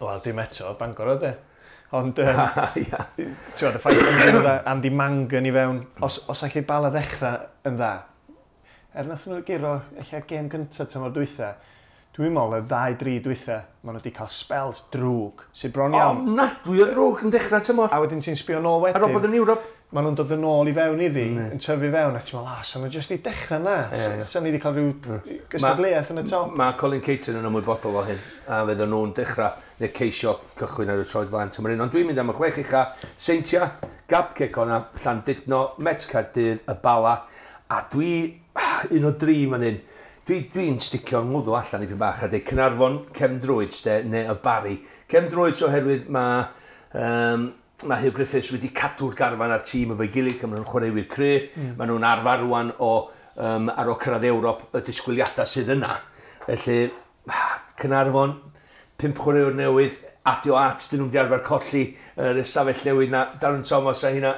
Speaker 1: Wel, dim eto, Bangor oedd e. Ond, ti'n gwybod, y ffaith bod nhw'n dod â Andy Mangan i fewn, os allai Bala ddechrau yn dda, er nath nhw guro ella gêm gyntaf tymor dwytha, Dwi'n meddwl y ddau, dri dwytha, maen nhw wedi cael spells drwg, sydd bron iawn.
Speaker 2: Ofnadwy o ddrwg yn dechrau tymor.
Speaker 1: A wedyn ti'n sbio nôl wedyn.
Speaker 2: Ar ôl bod yn Ewrop.
Speaker 1: Maen nhw'n dod yn ôl i fewn iddi, yn tyfu fewn, a ti'n meddwl, sa'n nhw jyst i dechrau na. Sa'n ni wedi cael rhyw gystadleuaeth yn y top.
Speaker 2: Mae Colin Caton yn ymwybodol o hyn, a fydden nhw'n dechrau neu ceisio cychwyn ar y troed flaen tymor un. Ond dwi'n mynd am y 6 ucha, Seintia, Gap Cei Connah, Llandudno, Met Caerdydd, y Bala, a dwi, un o dri fan hyn. Dwi'n sticio ngwddw allan i pyn bach a dweud Caernarfon, Cefn Druids de, neu y Barri. Cefn Druids oherwydd mae Huw Griffiths wedi cadw'r garfan a'r tîm efo'i gilydd, maen nhw'n chwaraewyr cry, maen nhw'n arfer rwan o ar ôl cyrraedd Ewrop y disgwyliadau sydd yna. Felly, Caernarfon, 5 chwaraewr newydd, adio at, dyn nhw'n di arfer colli yr ystafell newydd na, Darren Thomas a hynna.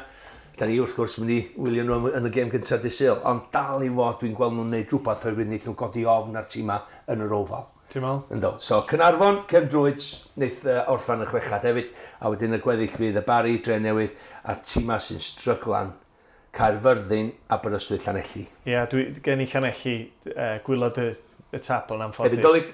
Speaker 2: Da ni wrth gwrs mynd i wylio nhw yn y gêm gyntaf dydd Sul, ond dal i fod dwi'n gweld nhw'n neud rhywbeth oherwydd wnaeth nhw godi ofn ar tîma yn yr Oval.
Speaker 1: Ti'n meddwl?
Speaker 2: Ynddo. So Caernarfon, Cefn Druids, wnaeth orffan y chwechad hefyd, a wedyn y gweddill fydd y Barri, Dre Newydd, a'r tîma sy'n stryglan, Caerfyrddin, Aberystwyth, Llanelli.
Speaker 1: Ie, yeah, dwi gen i Llanelli gwylod y tabl yn anffodus.
Speaker 2: Hefyd Dolig?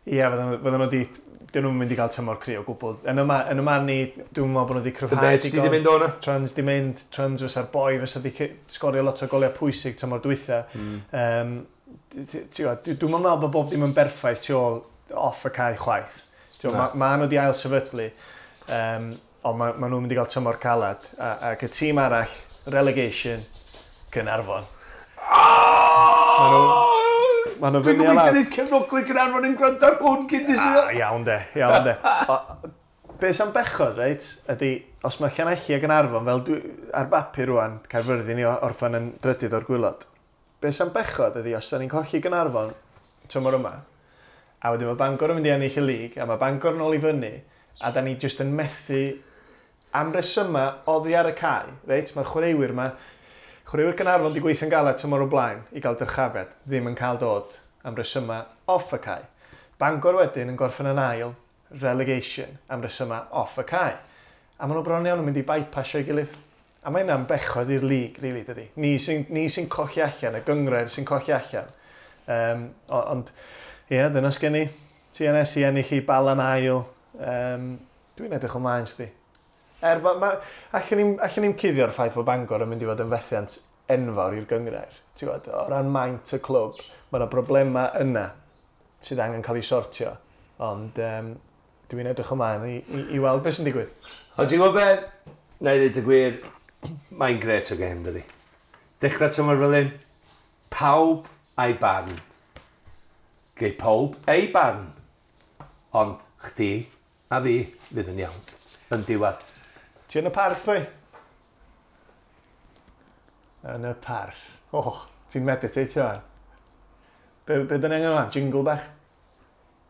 Speaker 1: Ie, yeah, fydden nhw di... Dyn nhw'n mynd i gael tymor cry o gwbl. Yn y man ni, dwi'n meddwl bod nhw wedi cryfhau.
Speaker 2: Dyfed, di mynd o'na?
Speaker 1: Trans di mynd, Trans fysa'r boi, fysa di sgorio lot o goliau pwysig tymor dwytha. Dwi'n meddwl bod bob dim yn berffaith tu ôl off y cae chwaith. Ma nhw wedi ail sefydlu, ond ma nhw'n mynd i gael tymor calad. Ac y tîm arall, relegation, Caernarfon. Ma' nhw
Speaker 2: Dwi'n
Speaker 1: fyny a
Speaker 2: gobeithio
Speaker 1: lawr.
Speaker 2: wneud cefnogwyr Caernarfon yn gwrando ar hwn cyn dydd Sul.
Speaker 1: Iawn de, iawn de. Be sy'n bechod, reit, ydy, os mae Llanelli a Gaernarfon, fel dwi, ar bapur rwan, Caerfyrddin i orffan yn drydydd o'r gwylod. Be sy'n bechod ydy, os da ni'n colli Gaernarfon tymor yma, a wedyn mae Bangor yn mynd i ennill y lig, a mae Bangor yn ôl i fyny, a da ni jyst yn methu am resymau oddi ar y cae, reit, mae'r chwaraewyr yma, chwaraewyr Gaernarfon wedi gweithio'n galed tymor o blaen i gael dyrchafiad, ddim yn cael dod am resymau off y cae. Bangor wedyn yn gorffen yn ail, relegation, am resymau off y cae. A maen nhw bron iawn yn mynd i bypassio'i gilydd. A mae hynna'n bechod i'r lig, really, dydy. Ni sy'n colli allan, y gynghrair sy'n colli allan. Ond, ie, dyna sgen i. TNS i ennill i Bala'n ail. Dwi'n edrych ymlaen, sdi. Er, allan ni'n cuddio'r ffaith bod Bangor yn mynd i fod yn fethiant enfawr i'r gynghrair. Ti'n gwybod, o ran maint y clwb, mae yna broblemau yna sydd angen cael ei sortio. Ond dwi'n edrych ymlaen i weld beth sy'n digwydd.
Speaker 2: Ond ti'n gwybod beth? Na i ddweud y gwir, mae'n gret o gêm, dydi. Dechrau tymor fel hyn, pawb a'i barn. Gei pawb ei barn. Ond chdi a fi fydd yn iawn. Yn diwedd.
Speaker 1: Ti yn y parth, boi? Yn y parth. Oh, ti'n meditatio ar. Be dyn ni angen rwan? Jingle bach?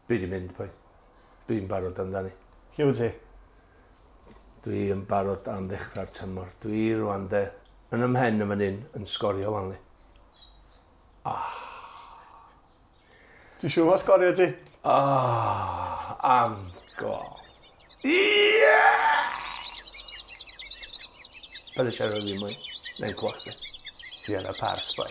Speaker 2: Dwi di mynd, boi. Dwi'n barod amdani.
Speaker 1: Lle wyt ti?
Speaker 2: Dwi yn barod am ddechrau'r tymor. Dwi rwan de, yn ymhen yn fan hyn, yn sgorio wan li.
Speaker 1: Ti'n siŵr ma sgorio ti?
Speaker 2: Am gol. Ie! Paid â siarad fi mwy. Neu'n clywed chdi.
Speaker 1: Ti yn y parth, boi.